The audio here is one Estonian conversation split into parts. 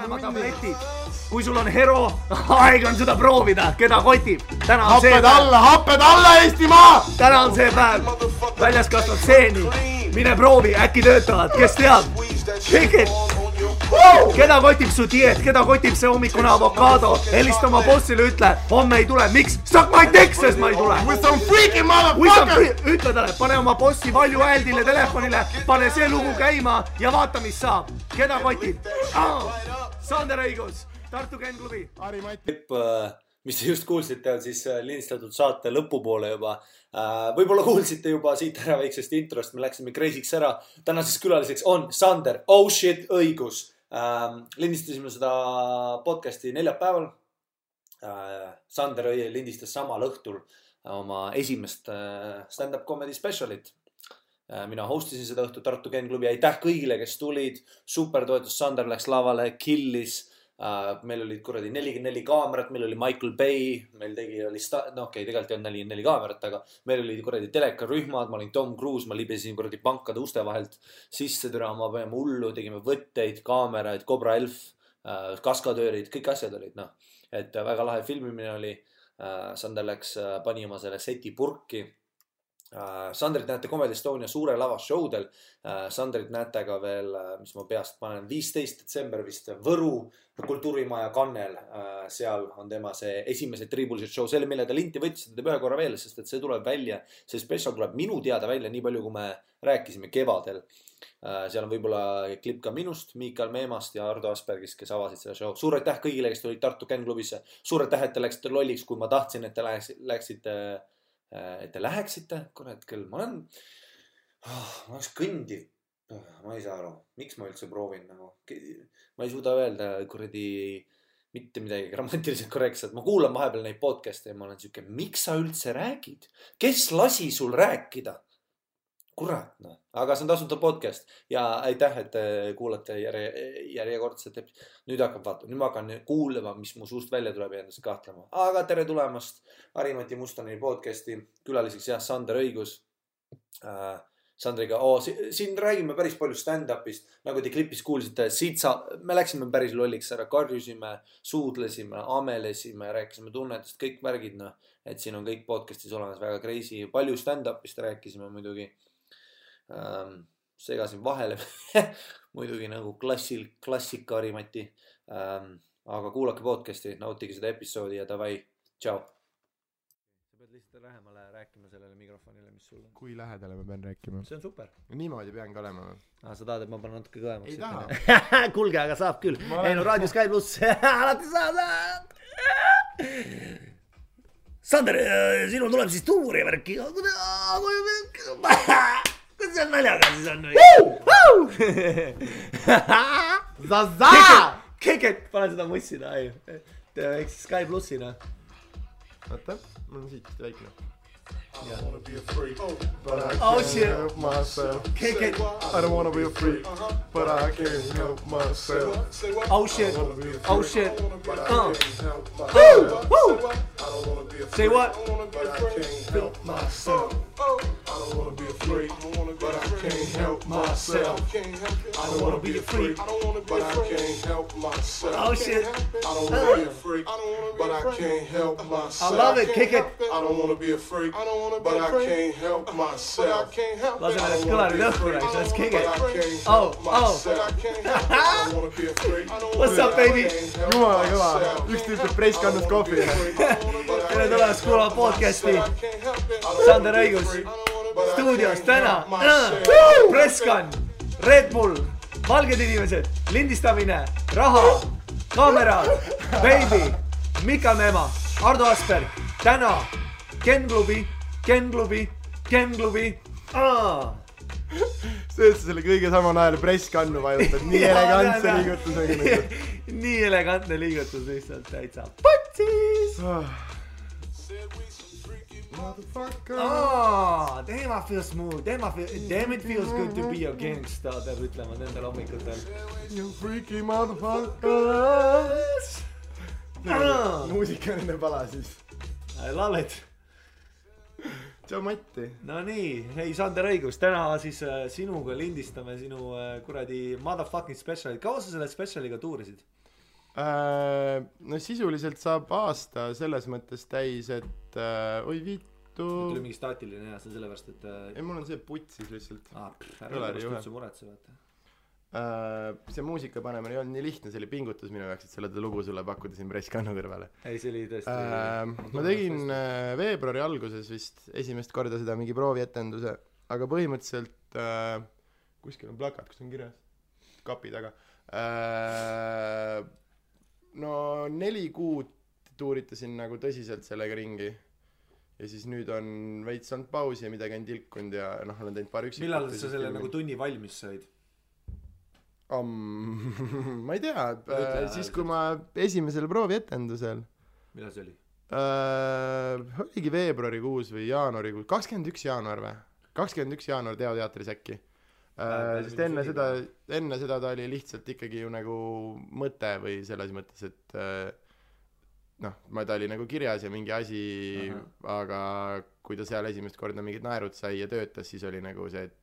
tabletid. Kui sul on hero, aeg on seda proovida, keda kotib. Täna on see päev. Happed alla Eestimaa! Täna on see päev. Väljas kasvab seeni. Mine proovi, äkki töötavad, kes teab. Keda kotib su dieet, keda kotib see hommikune avokaado. Helista oma bossile, ütle, homme ei tule. Miks? Suck my dick, sest ma ei tule. With some freaky motherfucker! Ütle talle, pane oma bossi Valju Häldile telefonile, pane see lugu käima ja vaata, mis saab. Keda kotib? Sander Õigus, Tartu Kenklubi. Ari Mati. Mis te just kuulsite, on siis lindistatud saate lõpupoole juba. Võib-olla kuulsite juba siit ära väiksest introst, me läksime kreisiks ära. Tänaseks külaliseks on Sander, oh shit, Õigus. Lindistasime seda podcasti neljapäeval. Sander lindistas samal õhtul oma esimest stand-up comedy specialit. Mina hostisin seda õhtu Tartu Kenklubi. Aitäh kõigile, kes tulid. Super toetus, Sander läks lavale, killis. Meil olid kuradi 44 kaamerat, meil oli Michael Bay, meil tegelikult ei olnud 44 kaamerat, aga meil olid kuradi telekarühmad, ma olin Tom Cruise, ma libesin kuradi pankade uste vahelt sisse türa, ma paneme hullu, tegime võtteid, kaameraid, Cobra Elf, kaskadöörid, kõik asjad olid, noh. Et väga lahe filmimine oli, Sander pani oma selle seti purki. Sandrit näete Comedy Estonia suure lava showdel. Sandrit näete ka veel, mis ma peast panen, 15 detsember vist Võru kultuurimaja Kannel. Seal on tema see esimese triibulised show, selle mille ta linti võttis, ta teeb ühe korra veel, sest et see tuleb välja, see special tuleb minu teada välja nii palju, kui me rääkisime kevadel. Seal on võib-olla klipp ka minust, Miikal Meemast ja Ardo Aspergist, kes avasid selle show. Suur aitäh kõigile, kes tulid Tartu Kenklubisse. Suur aitäh, et te läksite lolliks, kui ma tahtsin, et te läheksite, kurat küll, ma oleks kõndiv, ma ei saa aru, miks ma üldse proovin, ma ei suuda öelda kuradi mitte midagi grammatiliselt korrektselt, ma kuulan vahepeal neid podcast'e ja ma olen siuke, miks sa üldse räägid, kes lasi sul rääkida, kurat, noh, aga see on tasuta podcast ja aitäh, et kuulate järjekordselt, nüüd ma hakkan kuulema, mis mu suust välja tuleb ja endast kahtlema, aga tere tulemast Ari-Mati Mustani podcasti, külaliseks jah, Sander Õigus, Sandriga, siin räägime päris palju stand-upist, nagu te klipis kuulsite, me läksime päris lolliks ära, karjusime, suudlesime, amelesime, rääkisime tunnetest, kõik värgid, noh, et siin on kõik podcastis olemas väga crazy, palju stand-upist rääkisime muidugi. Segasin vahele muidugi nagu klassika Ari-Mati, aga kuulake podcasti, nautige seda episoodi ja davai, tšau. Sa pead lihtsalt lähemale rääkima sellele mikrofonile, mis sul on. Kui lähedale ma pean rääkima? See on super. Niimoodi pean ka olema. Sa tahad, et ma panen natuke kõvemaks? Ei taha. Kulge, aga saab küll. Ei no Raadio Sky Plus, alati saad. Sander, sinul tuleb siis tuuri värki. Kuidas see on naljaga siis on? Zaza! Keket, panen seda mussina. Eks Sky Plusina. Oota, mul on siit väikne. I don't wanna be a freak, but I Oh, can't shit. help myself. Kick it. I don't wanna be a freak, but I can't help myself. Oh shit. Oh shit. But I can't help Woo! Woo! myself. I don't wanna be a Say freak, what? but I can't help myself. I don't wanna be a freak, but I can't help myself. I don't wanna be a freak, but I can't help myself. Oh shit. I don't wanna be a freak, but I can't help myself. I love it. Kick it. I don't wanna be a freak, but I can't help myself. Laseme need kõlarid õhku, let's kick it. Oh. What's up, baby? Jumala kõva. Üks tüüp teeb presskannus kohvi. Tere tulemast kuulama podcasti. Sander Õigus. Stuudios täna. Presskan. Red Bull. Valged inimesed. Lindistamine. Raha. Kaamerad. Baby. Mika Meema. Ardo Asperg. Täna. Kenklubi. See ütles selle kõige saman ajal presskannu vajutad. Nii elegantse liigutusega. Nii elegantne liigutus lihtsalt täitsa. Patsis! Damn, I feel smooth. Damn, it feels good to be a gangsta, peab ütlema nendel hommikutel. You freaky motherfuckers. Muusika nende pala siis. I love it. Tšau Matti. No nii, hei Sander Õigus, täna siis sinuga lindistame sinu kuradi motherfucking speciali. Kaua sa selle specialiga tuurisid? No sisuliselt saab aasta selles mõttes täis, et oi vittu. Tuli mingi staatiline ja see sellepärast, et ei, mul on see putsis lihtsalt. Ära üldse muretse, vaata. See muusika panemine ei olnud nii lihtne, see oli pingutus minu jaoks, et selle lugu sulle pakkuda siin Presskannu kõrvale. Ei, see oli tõesti ma tegin veebruari alguses vist esimest korda seda mingi proovietenduse, aga põhimõtteliselt kuskil on plakat, kus on kirjas kapi taga. No 4 kuud tuuritasin nagu tõsiselt sellega ringi ja siis nüüd on veits olnud pausi ja midagi on tilkunud ja olen teinud paar üksikut. Millal sa selle nagu tunni valmis said? Ma ei tea, siis kui ma esimesel proovietendusel. Millal see oli? Oligi veebruarikuus või jaanuarikuus, 21 jaanuar või? 21 jaanuar Teo teatris äkki. Sest enne seda ta oli lihtsalt ikkagi ju nagu mõte või selles mõttes, et ta oli nagu kirjas ja mingi asi, aga kui ta seal esimest korda mingid naerud sai ja töötas, siis oli nagu see, et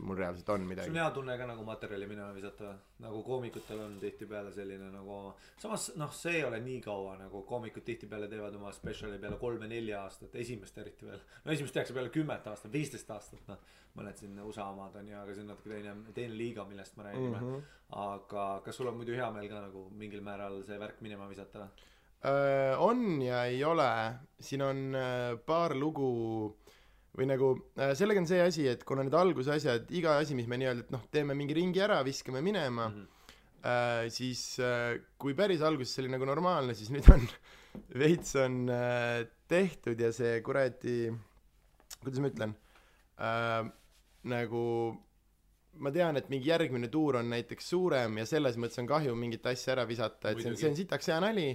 mul reaalselt on midagi. See on hea tunne ka nagu materjali minema visata, nagu koomikutel on tihtipeale selline nagu, samas see ei ole nii kaua, nagu koomikud tihtipeale teevad oma speciali peale 3-4 aastat, esimest eriti veel, esimest tehakse peale 10 aastat, 15 aastat, mõned siin USA omad on ja, aga see on natuke teine liiga, millest me räägime, aga kas sul on muidu hea meel ka nagu mingil määral see värk minema visata? On ja ei ole, siin on paar lugu või nagu, sellega on see asi, et kuna need alguse asjad, iga asi, mis me nii-öelda, et teeme mingi ringi ära, viskame minema, siis kui päris alguses see oli nagu normaalne, siis nüüd on veits on tehtud ja see kuradi, kuidas ma ütlen, nagu ma tean, et mingi järgmine tuur on näiteks suurem ja selles mõttes on kahju mingit asja ära visata, et see on sitaks hea nali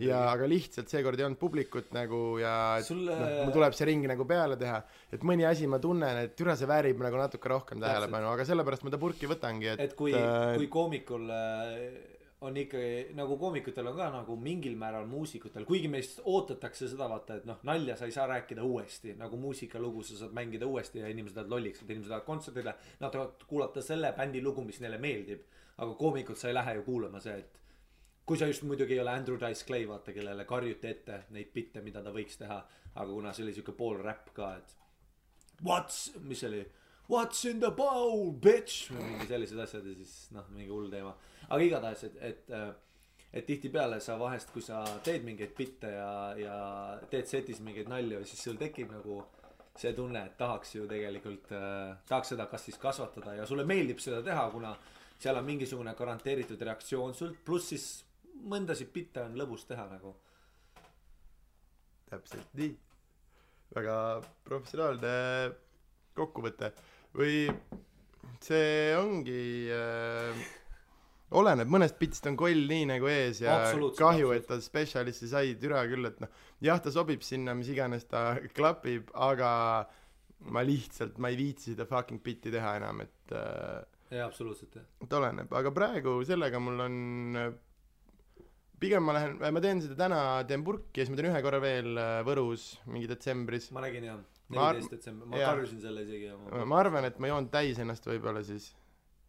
ja aga lihtsalt seekord ei olnud publikut nagu ja mul tuleb see ringi nagu peale teha, et mõni asi ma tunnen, et türa see väärib nagu natuke rohkem tähelepanu, aga sellepärast ma ta purki võtangi, et kui koomikul on ikkagi, nagu koomikutel on ka nagu mingil määral muusikutel, kuigi meist ootatakse seda vaata, et nalja sa ei saa rääkida uuesti, nagu muusikalugu sa saad mängida uuesti ja inimesed lähevad lolliks, et inimesed lähevad kontserdile, nad tahavad kuulata selle bändi lugu, mis neile meeldib, aga koomikud sa ei lähe ju kuulama see, et kui sa just muidugi ei ole Andrew Dice Clay, vaata, kellele karjuti ette neid bitte, mida ta võiks teha, aga kuna see oli siuke pool räpp ka, et mis oli? What's in the bowl, bitch? Mingi sellised asjad ja siis mingi hull teema. Aga igatahes, et tihtipeale sa vahest, kui sa teed mingeid bitte ja teed setis mingeid nalju, siis sul tekib nagu see tunne, et tahaks ju tegelikult, tahaks seda kas siis kasvatada ja sulle meeldib seda teha, kuna seal on mingisugune garanteeritud reaktsioon sult, pluss siis mõndasid bitte on lõbus teha nagu. Täpselt nii. Väga professionaalne kokkuvõte. Või see ongi oleneb, mõnest bitist on koll nii nagu ees ja kahju, et ta spetsialisti sai türa küll, et jah, ta sobib sinna, mis iganes ta klapib, aga ma ei viitsi seda fucking bitti teha enam, et jaa, absoluutselt jah. Et oleneb, aga praegu sellega mul on pigem ma teen seda täna, teen purki ja siis ma teen ühe korra veel Võrus mingi detsembris. Ma nägin jah. 14 detsember, ma karjusin selle isegi. Ma arvan, et ma joon täis ennast võib-olla siis,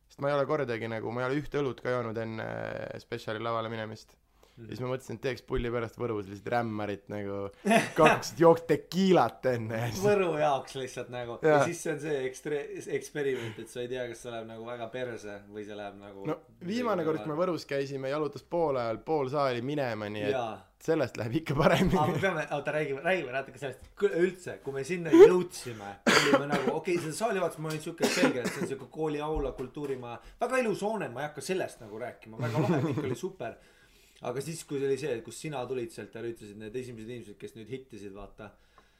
sest ma ei ole kordagi nagu, ma ei ole ühte õlut ka joonud enne spetsiali lavale minemist. Ja siis ma mõtlesin, et teeks pulli pärast Võrus lihtsalt rämmarit nagu, kaksid jooks tekiilat enne. Võru jaoks lihtsalt nagu. Ja siis see on see eksperiment, et sa ei tea, kas see läheb nagu väga perse või see läheb nagu... No viimane kord, kui me Võrus käisime, jalutas pool ajal, pool saali minema, nii et sellest läheb ikka paremini. Aga me peame, räägime natuke sellest. Üldse, kui me sinna jõudsime, olime nagu, see saali vaatas, ma olin siuke selge, et see on siuke kooli aula, kultuurimaa, väga ilus hoone, ma ei hakka sellest nagu rääkima, väga lahe, kõik oli super. Aga siis, kui see oli see, kus sina tulid sealt ja ütlesid need esimesed inimesed, kes nüüd hittisid, vaata,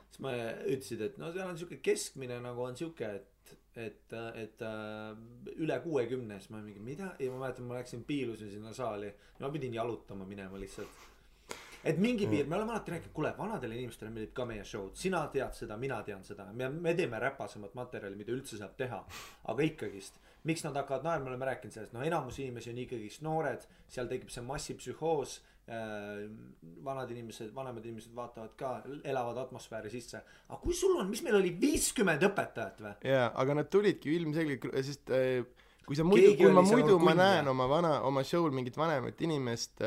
siis ma ütlesid, et seal on siuke keskmine nagu on siuke, et üle 60, siis ma mingi, mida? Ja ma mäletan, ma läksin piilusin sinna saali ja ma pidin jalutama minema lihtsalt. Et mingi piir, me oleme alati rääkinud, kuule, vanadele inimestele meeldib ka meie show'd, sina tead seda, mina tean seda, me teeme räpasemat materjali, mida üldse saab teha, aga ikkagist, miks nad hakkavad naerma, me oleme rääkinud sellest, enamus inimesi on ikkagist noored, seal tekib see massipsühhoos, vanemad inimesed vaatavad ka, elavad atmosfääri sisse, aga kui sul on, mis meil oli 50 õpetajat või? Jaa, aga nad tulidki ilmselgelt, sest kui ma näen oma show'l mingit vanemat inimest,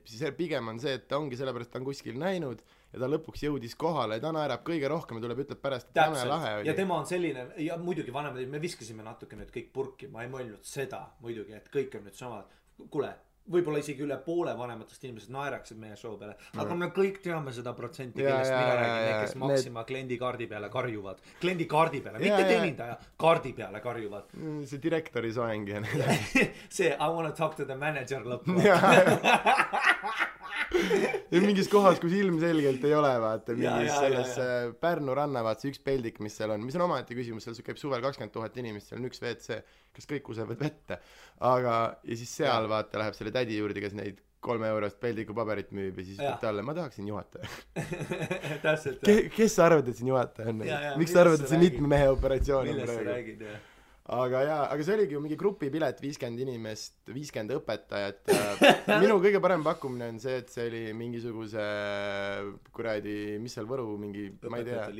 siis pigem on see, et ta ongi sellepärast, ta on kuskil näinud ja ta lõpuks jõudis kohale ja ta naerab kõige rohkem ja tuleb ütleb pärast, et jäme lahe oli. Ja tema on selline, ja muidugi vanemad, me viskasime natuke nüüd kõik purki, ma ei mõelnud seda muidugi, et kõik on nüüd samad. Kuule, võib-olla isegi üle poole vanematest inimesed naeraksid meie show peale, aga me kõik teame seda protsenti, kellest mina räägin, kes Maxima kliendikaardi peale karjuvad. Kliendikaardi peale, mitte teenindaja, kaardi peale karjuvad. See direktori soengi. See I wanna talk to the manager lõppu. Ja mingis kohas, kus ilmselgelt ei ole, vaata, mingis selles Pärnu ranna, vaata, see üks peldik, mis seal on, mis on omaette küsimus, seal käib suvel 20 000 inimest, seal on üks WC, kas kõik usevad vette, aga, ja siis seal, vaata, läheb selle tädi juurde, kes neid 3 eurost peldiku paberit müüb ja siis ütleb talle, ma tahaksin juhataja. Täpselt, kes sa arvad, et siin juhataja on? Miks sa arvad, et see mitme mehe operatsioon on praegu? Millest sa räägid, jah? Aga see oligi ju mingi grupipilet 50 inimest, 50 õpetajat. Minu kõige parem pakkumine on see, et see oli mingisuguse kuradi, mis seal Võru mingi, ma ei tea,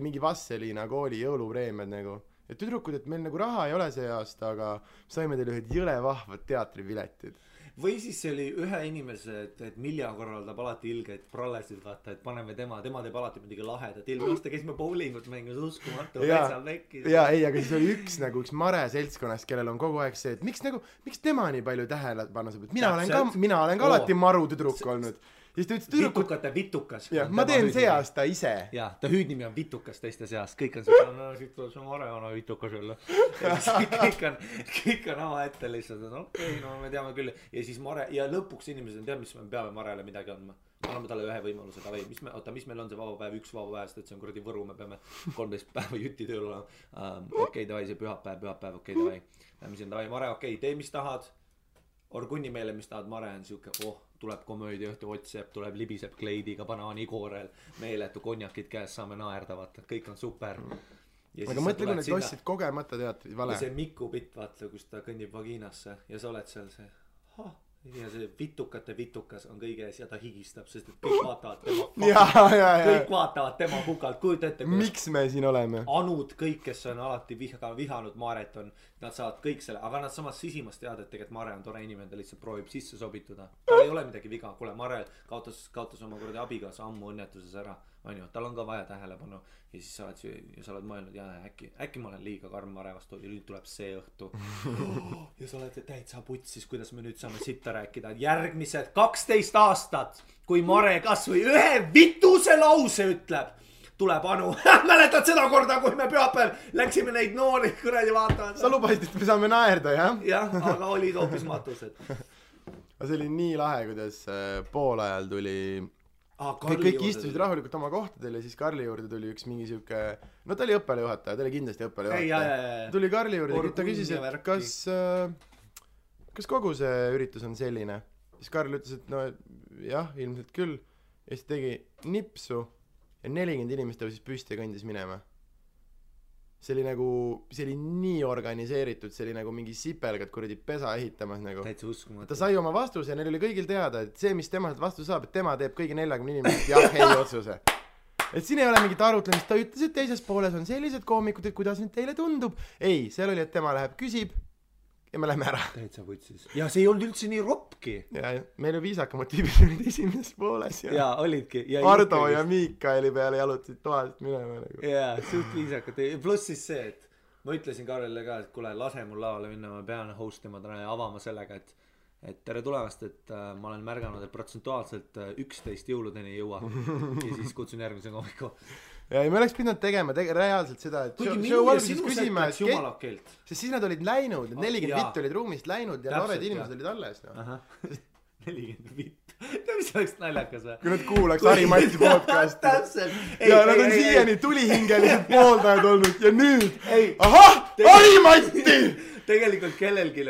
mingi Vasseliina kooli jõulupreemiad nagu. Et tüdrukud, et meil nagu raha ei ole see aasta, aga saime teile ühed jõle vahvad teatripiletid. Või siis see oli ühe inimese, et Milja korraldab alati ilgeid prallesid, vaata, et paneme tema teeb alati midagi lahedat. Ilmast käisime bowlingut mängimas uskumatu. Ja ei, aga siis oli üks Mare seltskonnast, kellel on kogu aeg see, et miks tema nii palju tähelepanu saab, et mina olen ka alati maru tüdruk olnud. Vitukate vitukas. Ma teen see aasta ise. Ja, ta hüüdnimi on Vitukas teiste seas. Kõik on see, siit tuleb see Mare ona Vitukas jälle. Kõik on oma ette lihtsalt. Okei, no me teame küll. Ja siis Mare, ja lõpuks inimesed teab, mis me peame Marele midagi andma. Anname talle ühe võimaluse, mis meil on see vaba päev, üks vaba päev, sest et see on kuradi Võru, me peame 13 päeva jutti tööl olema. Okei, davai, see pühapäev, okei, davai. Lähme siin, davai, Mare, okei, tee, mis tahad. Orgunni meile, mis tahad, Mare on siuke, tuleb komöödia õhtu otseb, tuleb libiseb kleidiga banaanikoorel, meeletu konjakid käes, saame naerda, vaata, kõik on super. Aga mõtle, kui need lossid kogemata teatrid, vale. Ja see Miku pitt, vaata, kus ta kõnnib vaginasse ja sa oled seal see, ja see vitukas on kõige ees ja ta higistab, sest et kõik vaatavad tema hukalt, kujuta ette. Miks me siin oleme? Anud, kõik, kes on alati vihanud Maret on, nad saavad kõik selle, aga nad samas sisimas teada, et tegelikult Mare on tore inimene, ta lihtsalt proovib sisse sobituda. Tal ei ole midagi viga, kuule, Mare kaotas oma kuradi abigaasa ammu õnnetuses ära, on ju, tal on ka vaja tähelepanu ja siis sa oled mõelnud, äkki ma olen liiga karm Mare vastu ja nüüd tuleb see õhtu ja sa oled täitsa putsis, kuidas me nüüd saame sitta rääkida järgmised 12 aastat, kui Mare kas või ühe vituse lause ütleb, tuleb Anu. Mäletad seda korda, kui me pühapäeval läksime neid noori kuradi vaatama. Sa lubasid, et me saame naerda, jah? Jah, aga olid hoopis matused. See oli nii lahe, kuidas pool ajal tuli kõik istusid rahulikult oma kohtadel ja siis Karli juurde tuli üks mingi siuke, no ta oli õppealajuhataja, ta oli kindlasti õppealajuhataja. Tuli Karli juurde, ta küsis, et kas kogu see üritus on selline? Siis Karl ütles, et no jah, ilmselt küll. Ja siis tegi nipsu ja 40 inimest tõusis püsti ja kõndis minema. See oli nii organiseeritud, see oli nagu mingi sipelgad kuradi pesa ehitamas nagu. Täitsa uskumatu. Ta sai oma vastuse ja neil oli kõigil teada, et see, mis tema vastuse saab, et tema teeb kõigi 40 inimest jah-ei otsuse. Et siin ei ole mingit arutlemist, ta ütles, et teises pooles on sellised koomikud, et kuidas nüüd teile tundub. Ei, seal oli, et tema läheb küsib ja me lähme ära. Täitsa võtsis. Ja see ei olnud üldse nii ropki. Ja meil viisakamad tüübid olid esimeses pooles. Ja olidki. Ardo ja Miikaeli peale jalutasid toast minema. Ja, suht viisakad. Pluss siis see, et ma ütlesin Karlile ka, et kuule, lase mul lavale minna, ma pean hostima täna ja avama sellega, et tere tulemast, et ma olen märganud, et protsentuaalselt 11 jõuludeni ei jõua. Ja siis kutsun järgmise koomiku. Ja me oleks pidanud tegema reaalselt seda, et show alguses küsima, et sest siis nad olid läinud, 40 vitt olid ruumist läinud ja noored inimesed olid alles. 40 vitt. Tea, mis oleks naljakas või? Kui nad kuulaks Harimati podcasti. Täpselt. Ja nad on siiani tulihingelised pooldajad olnud ja nüüd, ahah, Harimati! Tegelikult kellelgi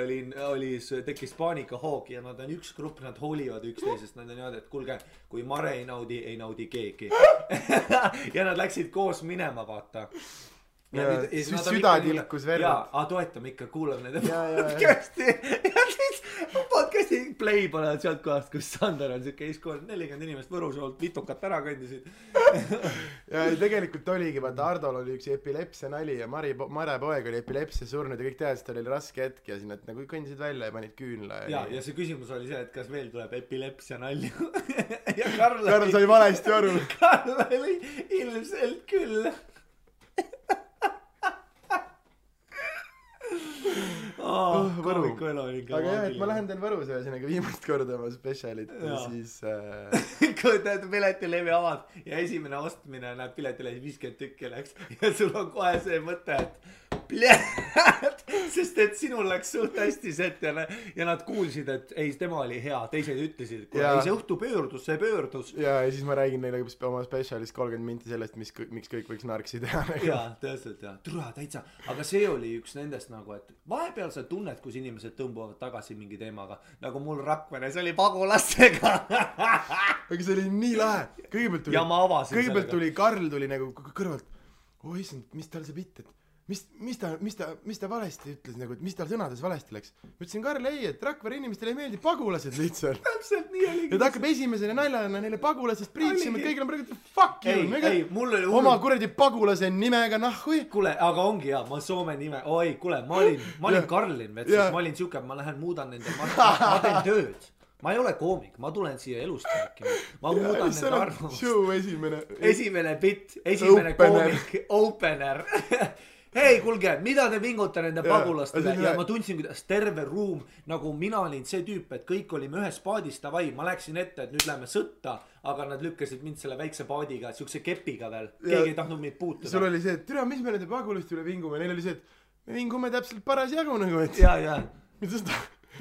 tekkis paanikahoog ja nad on üks grupp, nad hoolivad üksteisest, nad on niimoodi, et kuulge, kui Mare ei naudi keegi. Ja nad läksid koos minema, vaata. Süda tilkus verre. Toetame ikka, kuulame nende podcasti. Ja siis podcasti play panevad sealt kohast, kus Sander on siuke eeskool 40 inimest Võrusoolt vitukat ära kõndisid. ja tegelikult oligi, vaata Hardol oli üks epilepsia nali ja Mare poeg oli epilepsia surnud ja kõik teadsid, et tal oli raske hetk ja siis nad nagu kõndisid välja ja panid küünla. ja see küsimus oli see, et kas veel tuleb epilepsia nalju. ja Karl sai valesti aru. Karl oli ilmselt küll. Võru. Aga jah, et ma lähen teil Võrus ühesõnaga viimast korda oma spetsialit ja siis kui tead piletilevi avad ja esimene ostmine näeb piletilevi 50 tükki läks ja sul on kohe see mõte, et pljääd, sest et sinul läks suht hästi set ja nad kuulsid, et ei, tema oli hea, teised ütlesid, kui ei, see õhtu pöördus. ja siis ma räägin neile oma spetsialist 30 minti sellest, miks kõik võiks narksi teha. jaa, tõeselt jah, türa täitsa, aga see oli üks nendest nagu, et vahepeal sa tunned, kus inimesed tõmbuvad tagasi mingi teemaga, nagu mul Rakveres oli pagulastega. aga see oli nii lahe, kõigepealt tuli Karl tuli nagu kõrvalt, oi issand, mis tal see pitt, et mis ta valesti ütles nagu, et mis tal sõnades valesti läks. Ma ütlesin Karl, ei, et Rakvere inimestele ei meeldi pagulased lihtsalt. Täpselt nii oli. ja ta hakkab esimesena naljana neile pagulasest priitsima, et kõigil on praegu fuck you. Ei, oma kuradi pagulase nimega, nahui. Kuule, aga ongi jah, ma Soome nime, oi, kuule, ma olin Karlin vetsus, ma olin siuke, ma lähen muudan nende, ma teen tööd. Ma ei ole koomik, ma tulen siia elust rääkima. Ma muudan nende arvamust. Show esimene bitt, esimene koomik, opener. Hei, kulge, mida te vinguta nende pagulastele? Ja ma tundsin, kuidas terve ruum, nagu mina olin see tüüp, et kõik olime ühes paadis, tavai, ma läksin ette, et nüüd läheme sõtta, aga nad lükkasid mind selle väikse paadiga, siukse kepiga veel. Keegi ei tahtnud mind puutuda. Sul oli see, et türa, mis me nende pagulaste üle vingume? Neil oli see, et me vingume täpselt paras jagu nagu, et... Ja.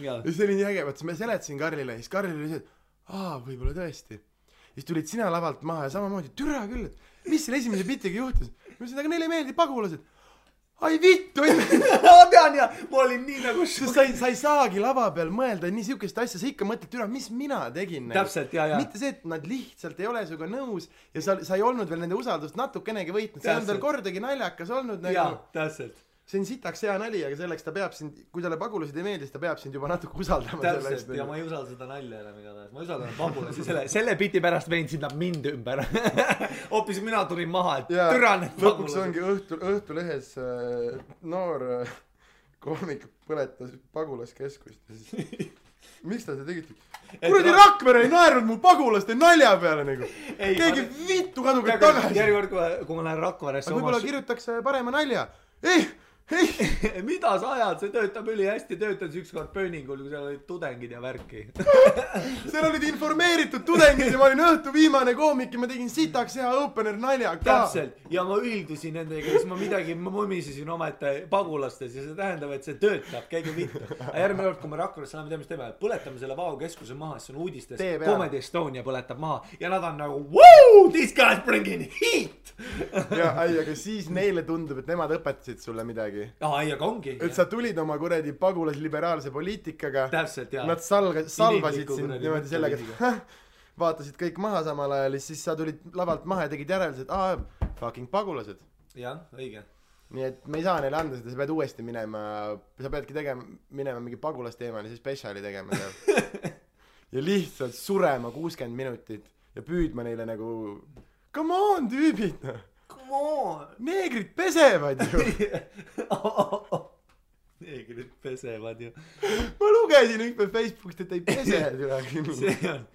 Ja see oli nii äge, vaat ma seletasin Karlile ja siis Karlile oli see, et võib-olla tõesti. Siis tulid sina lavalt maha ja samamoodi, türa küll, et mis selle esimese bitiga juhtus? Ma ütlesin, aga neile ei meeldi pagulased. Ai vittu, ma tean ja ma olin nii nagu sa ei saagi lava peal mõelda nii siukest asja, sa ikka mõtled, türa, mis mina tegin. Täpselt, ja. Mitte see, et nad lihtsalt ei ole suga nõus ja sa ei olnud veel nende usaldust natukenegi võitnud, see on veel kordagi naljakas olnud. Jaa, täpselt. See on sitaks hea nali, aga selleks ta peab sind, kui talle pagulased ei meeldi, ta peab sind juba natuke usaldama. Täpselt, ja ma ei usalda seda nalja enam igatahes. Ma ei usalda pagulasi selle biti pärast vein sinna mind ümber. Hoopis mina tulin maha, et türa need pagulased. Lõpuks ongi õhtulehes noor koomik põletas pagulaskeskust. Miks ta seda tegid? Kuradi Rakvere ei naernud mu pagulaste nalja peale nagu. Keegi vittu kaduge tagasi. Järgord, kui ma lähen Rakveresse omas... Võib-olla kirjutaks parema nalja. Mida sa ajad, see töötab üli hästi, töötas ükskord pööningul, kui seal olid tudengid ja värki. Seal olid informeeritud tudengid ja ma olin õhtu viimane koomik ja ma tegin sitaks hea opener nalja ka. Täpselt, ja ma ühildusin nendega ja siis ma midagi mõmisisin omete pagulastes ja see tähendab, et see töötab, käige vittu. Järgmine kord, kui me Rakveresse läheme, mis teeme, põletame selle Vao keskuse maha, siis on uudistes, Comedy Estonia põletab maha ja nad on nagu, woo, this guy's bringing heat. aga siis neile tundub, et nemad õpetasid sulle midagi. Aga ongi. Et sa tulid oma kuradi pagulasliberaalse poliitikaga. Täpselt, jah. Nad salvasid sind niimoodi sellega, et vaatasid kõik maha samal ajal, siis sa tulid lavalt maha ja tegid järeldused, fucking pagulased. Jah, õige. Nii et me ei saa neile anda seda, sa pead uuesti minema, sa peadki minema mingi pagulasteemalise spetsiali tegema seal. Ja lihtsalt surema 60 minutit ja püüdma neile nagu, come on, tüübid. Come on. Neegrid pesevad ju. Neegrid pesevad ju. Ma lugesin ükspäev Facebookist, et ei pese. See on.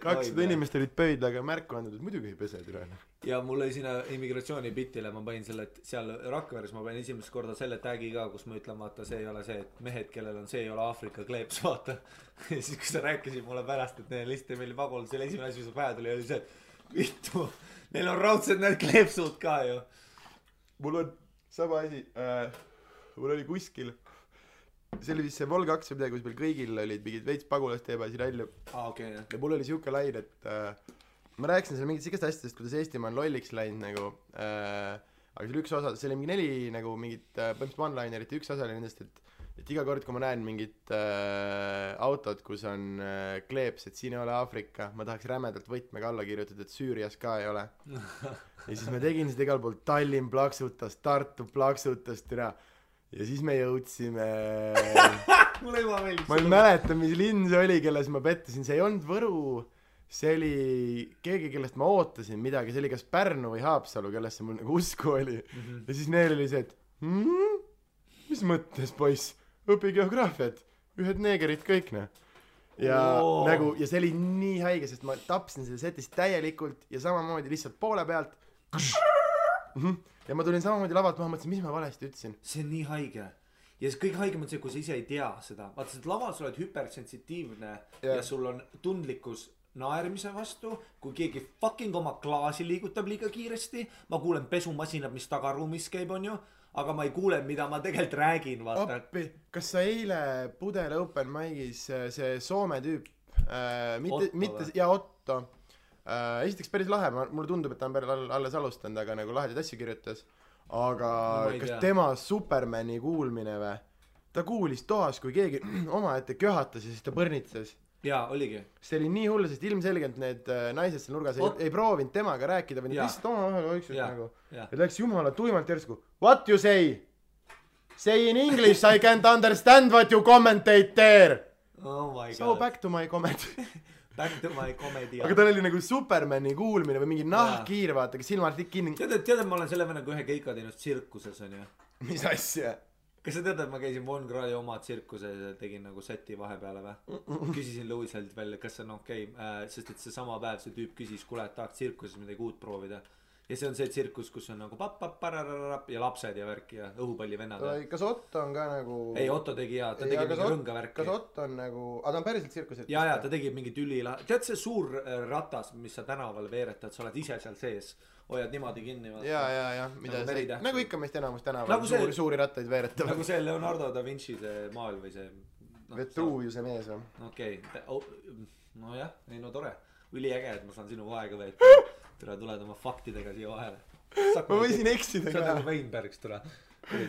200 inimest olid pöidlaga märku andnud, et muidugi ei pese türana. Ja mul oli sinna immigratsioonibitile, ma panin selle, et seal Rakveres ma panin esimest korda selle tagi ka, kus ma ütlen, vaata, see ei ole see, et mehed, kellel on see, ei ole Aafrika kleeps, vaata. Ja siis, kui sa rääkisid mulle pärast, et neil lihtsalt meil pagul, selle esimene asi, mis ma pähe tuli, oli see, et vittu, neil on raudsed need kleepsud ka ju. Mul on sama asi, mul oli kuskil, see oli vist see Vol 2 või midagi, kus meil kõigil olid mingid veits pagulasteemasid välja. Okay, jah. Ja mul oli siuke lain, et ma rääkisin seal mingit sikast asjadest, kuidas Eestimaa on lolliks läinud nagu, aga see oli üks osa, see oli mingi 4 nagu mingit põhimõtteliselt one-linerit ja üks osa oli nendest, et iga kord, kui ma näen mingit autot, kus on kleeps, et siin ei ole Aafrika, ma tahaks rämedalt võtmega alla kirjutada, et Süürias ka ei ole. Ja siis ma tegin seda igal pool, Tallinn plaksutas, Tartu plaksutas, türa. Ja siis me jõudsime mulle juba meeldib. ma ei mäleta, mis linn see oli, kelles ma pettusin, see ei olnud Võru, see oli keegi, kellest ma ootasin midagi, see oli kas Pärnu või Haapsalu, kellesse mul nagu usku oli. Ja siis neil oli see, et mis mõttes, poiss, õpi geograafiat, ühed neegerid kõik, noh. Ja nagu, ja see oli nii haige, sest ma tapsin selle setist täielikult ja samamoodi lihtsalt poole pealt. Ja ma tulin samamoodi lavalt maha, mõtlesin, mis ma valesti ütlesin. See on nii haige. Ja see kõik haigem on see, kui sa ise ei tea seda. Vaata, et laval sa oled hüpersensitiivne ja sul on tundlikkus naermise vastu, kui keegi fucking oma klaasi liigutab liiga kiiresti. Ma kuulen pesumasinad, mis tagaruumis käib, on ju. Aga ma ei kuule, mida ma tegelikult räägin, vaata. Appi, kas sa eile Pudel Open Mic'is see Soome tüüp, Otto, esiteks päris lahe, mulle tundub, et ta on alles alustanud, aga nagu lahedaid asju kirjutas, aga kas tema Supermani kuulmine või? Ta kuulis toas, kui keegi omaette köhatas ja siis ta põrnitses. Jaa, oligi. See oli nii hull, sest ilmselgelt need naised seal nurgas ei proovinud temaga rääkida, või lihtsalt omavahel vaikselt nagu. Ja läks jumala tuimalt järsku. What you say? Say in English, I can't understand what you commentate there. Oh my god. So back to my comment. Back to my comedy. Aga tal oli nagu Supermani kuulmine või mingi nahkkiir, vaata, kes silmad kinni. Tead, ma olen selle nagu ühe keika teinud tsirkuses, on ju. Mis asja? Kas sa tead, et ma käisin Von Krahli oma tsirkuse ja tegin nagu seti vahepeale või? Küsisin Louiselt veel, kas see on okei, sest et see sama päev see tüüp küsis, kuule, et tahaks tsirkuses midagi uut proovida. Ja see on see tsirkus, kus on nagu papp ja lapsed ja värk ja õhupalli vennad. Kas Otto on ka nagu... Ei, Otto tegi ja, ta tegi mingi rõnga värki. Kas Otto on nagu... ta on päriselt tsirkuses? Ja, ta tegi mingi tülila... Tead see suur ratas, mis sa tänaval veeretad, sa oled ise seal sees. Hoiad niimoodi kinni. Ja. Nagu ikka meist enamus tänaval nagu suuri rattaid veeretavad. Nagu see Leonardo da Vinci see maal või see... Vetruviuse mees või? Okei. No jah, ei no tore. Üli äge, et ma saan sinu aega veeta. Tule tuled oma faktidega siia vahele. Ma võisin eksida ka. Sa oled nagu Weinbergs, tule.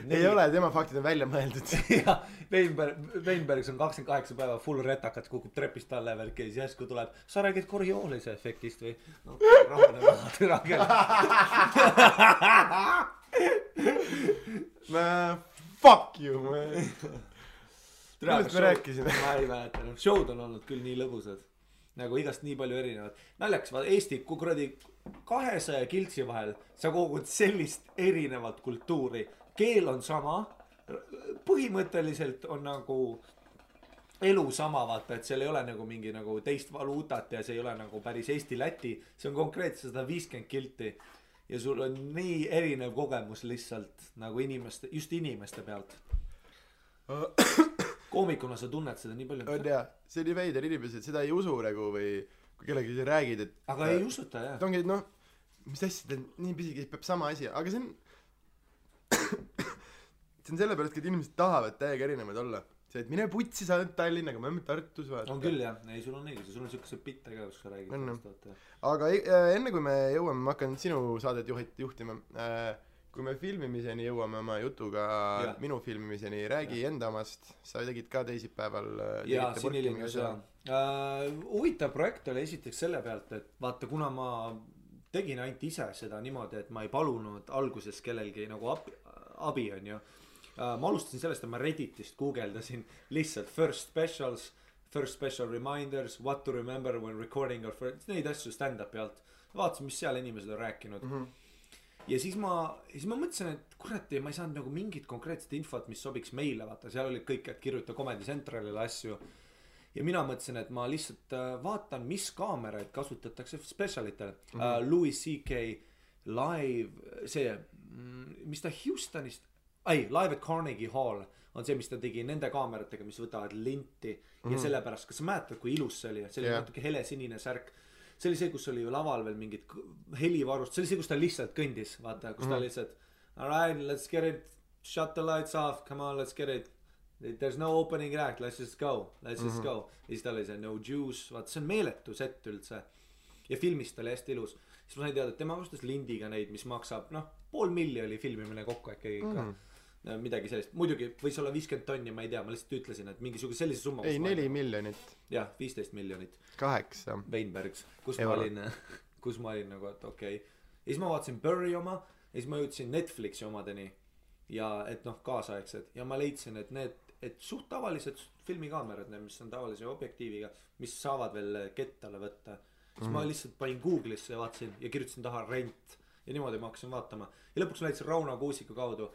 Ei ole, tema faktid on välja mõeldud. Ja, Weinbergs on 28 päeva full retakat, kukub trepist alla värk ja siis järsku tuleb, sa räägid Coriolis'e efektist või? No, rahvane. Fuck you, man. Millest me rääkisime? Ma ei mäleta, show'd on olnud küll nii lõbusad. Nagu igast nii palju erinevad. Naljakas, Eesti kuradi 200 kiltsi vahel sa kogud sellist erinevat kultuuri. Keel on sama. Põhimõtteliselt on nagu elu sama, vaata, et seal ei ole nagu mingi nagu teist valuutat ja see ei ole nagu päris Eesti-Läti. See on konkreetselt 150 kilti. Ja sul on nii erinev kogemus lihtsalt nagu just inimeste pealt. Koomikuna sa tunned seda nii palju. On jah, see oli veider inimesed, seda ei usu nagu või kui kellegi sa räägid, et... Aga ei usuta, jah. Et ongi, et noh, mis asja, ta nii pisigi peab sama asi, aga see on... see on selle pärast, et inimesed tahavad täiega erinevad olla. See, et mine putsi, sa oled Tallinnaga, ma olen Tartus vaata. On küll jah, ei sul on õigus, sul on siukese bitte ka, kus sa räägid. Aga enne kui me jõuame, ma hakkan sinu saadet juhtima. Kui me filmimiseni jõuame oma jutuga minu filmimiseni, räägi enda omast, sa tegid ka teisipäeval. Jaa, Sinilingus ja. Huvitav projekt oli esiteks selle pealt, et vaata, kuna ma tegin ainult ise seda niimoodi, et ma ei palunud alguses kellelgi nagu abi on ju. Ma alustasin sellest, et ma Redditist guugeldasin lihtsalt first special reminders, what to remember when recording or first, neid asju stand-upi alt. Vaatasin, mis seal inimesed on rääkinud. Ja siis ma mõtlesin, et kurat, ma ei saanud nagu mingit konkreetset infot, mis sobiks meile, vaata, seal olid kõik, et kirjuta Comedy Centralile asju. Ja mina mõtlesin, et ma lihtsalt vaatan, mis kaameraid kasutatakse specialitel. Louis C.K. live, see, mis ta Houstonist, live at Carnegie Hall on see, mis ta tegi nende kaameratega, mis võtavad linti. Ja sellepärast, kas sa mäletad, kui ilus see oli? See oli natuke helesinine särk. See oli see, kus oli laval veel mingid helivarust. See oli see, kus ta lihtsalt kõndis, vaata, kus ta lihtsalt alright, let's get it, shut the lights off, come on, let's get it. There's no opening act, let's just go. Ja siis ta oli see no juice, vaata, see on meeletu set üldse. Ja filmist oli hästi ilus. Siis ma sain teada, et tema kasutas lindiga neid, mis maksab, $500,000 oli filmimine kokku äkki ikka. Midagi sellist, muidugi võis olla 50 tonni, ma ei tea, ma lihtsalt ütlesin, et mingisuguse sellise summa. Ei, 4 miljonit. Jah, 15 miljonit. 8. Weinbergs, kus ma olin nagu, et okei. Ja siis ma vaatasin Burry oma, ja siis ma jõudsin Netflixi omadeni ja et kaasaegsed ja ma leidsin, et need et suht tavalised filmikaamerad, mis on tavalise objektiiviga, mis saavad veel kettale võtta. Siis ma lihtsalt panin Google'isse ja vaatasin ja kirjutasin taha rent ja niimoodi ma hakkasin vaatama. Ja lõpuks ma leidsin Rauno Kuusiku kaudu.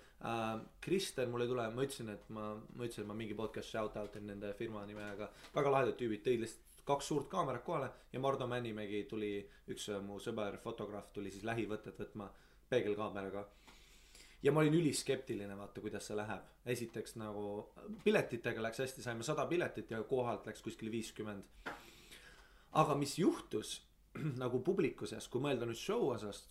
Kristen mulle ei tule, ma ütlesin, et ma mingi podcast shoutoutin nende firma nime, aga väga lahedad tüübid tõid lihtsalt 2 suurt kaamerat kohale ja Mardo Männimägi tuli, üks mu sõber, fotograaf tuli siis lähivõtet võtma peegelkaameraga. Ja ma olin üliskeptiline, vaata kuidas see läheb. Esiteks nagu piletitega läks hästi, saime 100 piletit ja kohalt läks kuskil 50. Aga mis juhtus nagu publiku seas, kui mõelda nüüd show osast,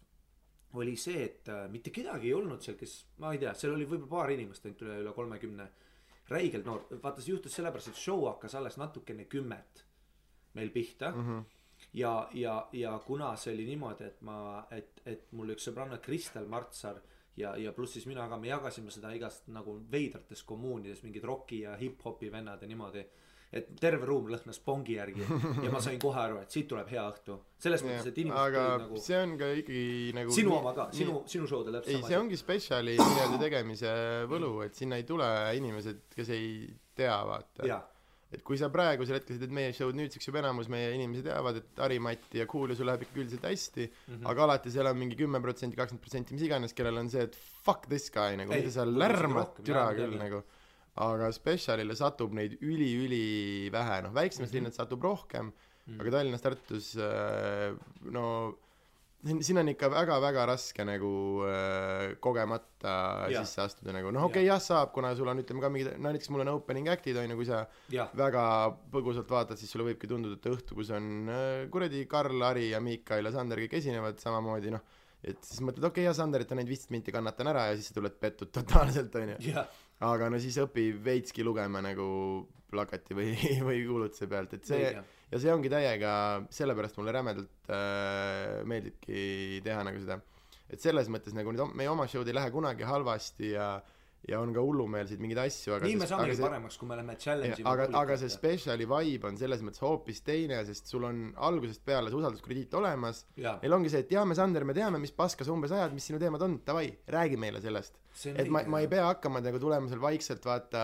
oli see, et mitte kedagi ei olnud seal, kes, ma ei tea, seal oli võib-olla paar inimest, ainult üle 30 räigelt noor. Vaata, see juhtus sellepärast, et show hakkas alles natukene 10 meil pihta. Ja kuna see oli niimoodi, et mul üks sõbranna Kristel Martsar ja pluss siis mina, aga me jagasime seda igast nagu veidrates kommuunides, mingid rocki ja hip-hopi vennad ja niimoodi, et terve ruum lõhnas pongi järgi ja ma sain kohe aru, et siit tuleb hea õhtu. Selles mõttes, et inimesed aga nagu... see on ka ikkagi nagu... Sinu oma ka, sinu show'de läbi sama. Ei, see ongi spetsiali nii-öelda tegemise võlu, et sinna ei tule inimesed, kes ei tea, vaata. Et kui sa praegusel hetkel teed meie show'd, nüüdseks juba enamus meie inimesed teavad, et Harimati ja Kuul ja sul läheb ikka üldiselt hästi, aga alati seal on mingi 10%, 20%, mis iganes, kellel on see, et fuck this guy, nagu mida sa lärmad türa küll nagu. Aga spetsialile satub neid üli vähe, noh väiksemast linnad satub rohkem, aga Tallinnas, Tartus, no siin on ikka väga raske nagu kogemata sisse astuda nagu, noh okei, jah saab, kuna sul on ütleme ka mingi, no näiteks mul on opening act'id, on ju, kui sa väga põgusalt vaatad, siis sulle võibki tunduda, et õhtu, kus on kuradi Karl, Ari ja Miikael ja Sander, kõik esinevad samamoodi, noh, et siis mõtled, okei, ja Sander, et on neid 15 minti kannatan ära ja siis sa tuled pettud totaalselt, on ju. Aga no siis õpi veitski lugema nagu plakati või kuulutuse pealt, et see ja see ongi täiega, sellepärast mulle rämedalt meeldibki teha nagu seda, et selles mõttes nagu meie oma show'd ei lähe kunagi halvasti ja on ka hullumeelseid mingeid asju, aga nii me saamegi paremaks, kui me lähme challenge'i aga see spetsiali vibe on selles mõttes hoopis teine, sest sul on algusest peale see usalduskrediit olemas, neil ongi see, et jah, Sander, me teame, mis paska sa umbes ajad, mis sinu teemad on, davai, räägi meile sellest. Et ma ei pea hakkama nagu tulema seal vaikselt vaata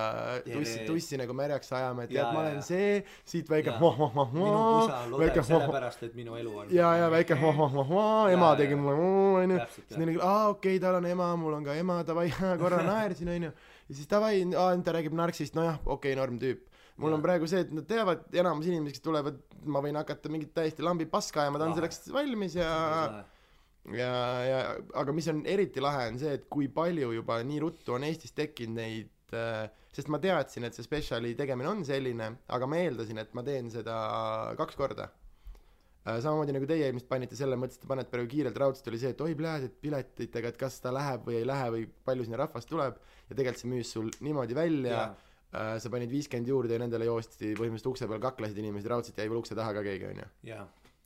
tussi nagu märjaks ajama, et jah, ma olen see, siit väike minu pusa lodeb sellepärast, et minu elu on ja väike ema tegi mulle siis neil okei, tal on ema, mul on ka ema, davai, korra naersin, on ju ja siis davai, ta räägib narksist, nojah, okei, norm tüüp mul on praegu see, et nad teavad, enamus inimesed, kes tulevad, ma võin hakata mingit täiesti lambi paska ajama, ta on selleks valmis ja aga mis on eriti lahe on see, et kui palju juba nii ruttu on Eestis tekkinud neid, sest ma teadsin, et see spetsiali tegemine on selline, aga ma eeldasin, et ma teen seda 2 korda. Samamoodi nagu teie ilmselt panite selle, mõtlesid, paned praegu kiirelt raudselt oli see, et oi pläad, et piletitega, et kas ta läheb või ei lähe või palju sinna rahvast tuleb ja tegelikult see müüs sul niimoodi välja, sa panid 50 juurde ja nendele joosti põhimõtteliselt ukse peal kaklasid inimesed raudselt jäi veel ukse taha ka keegi, on ju.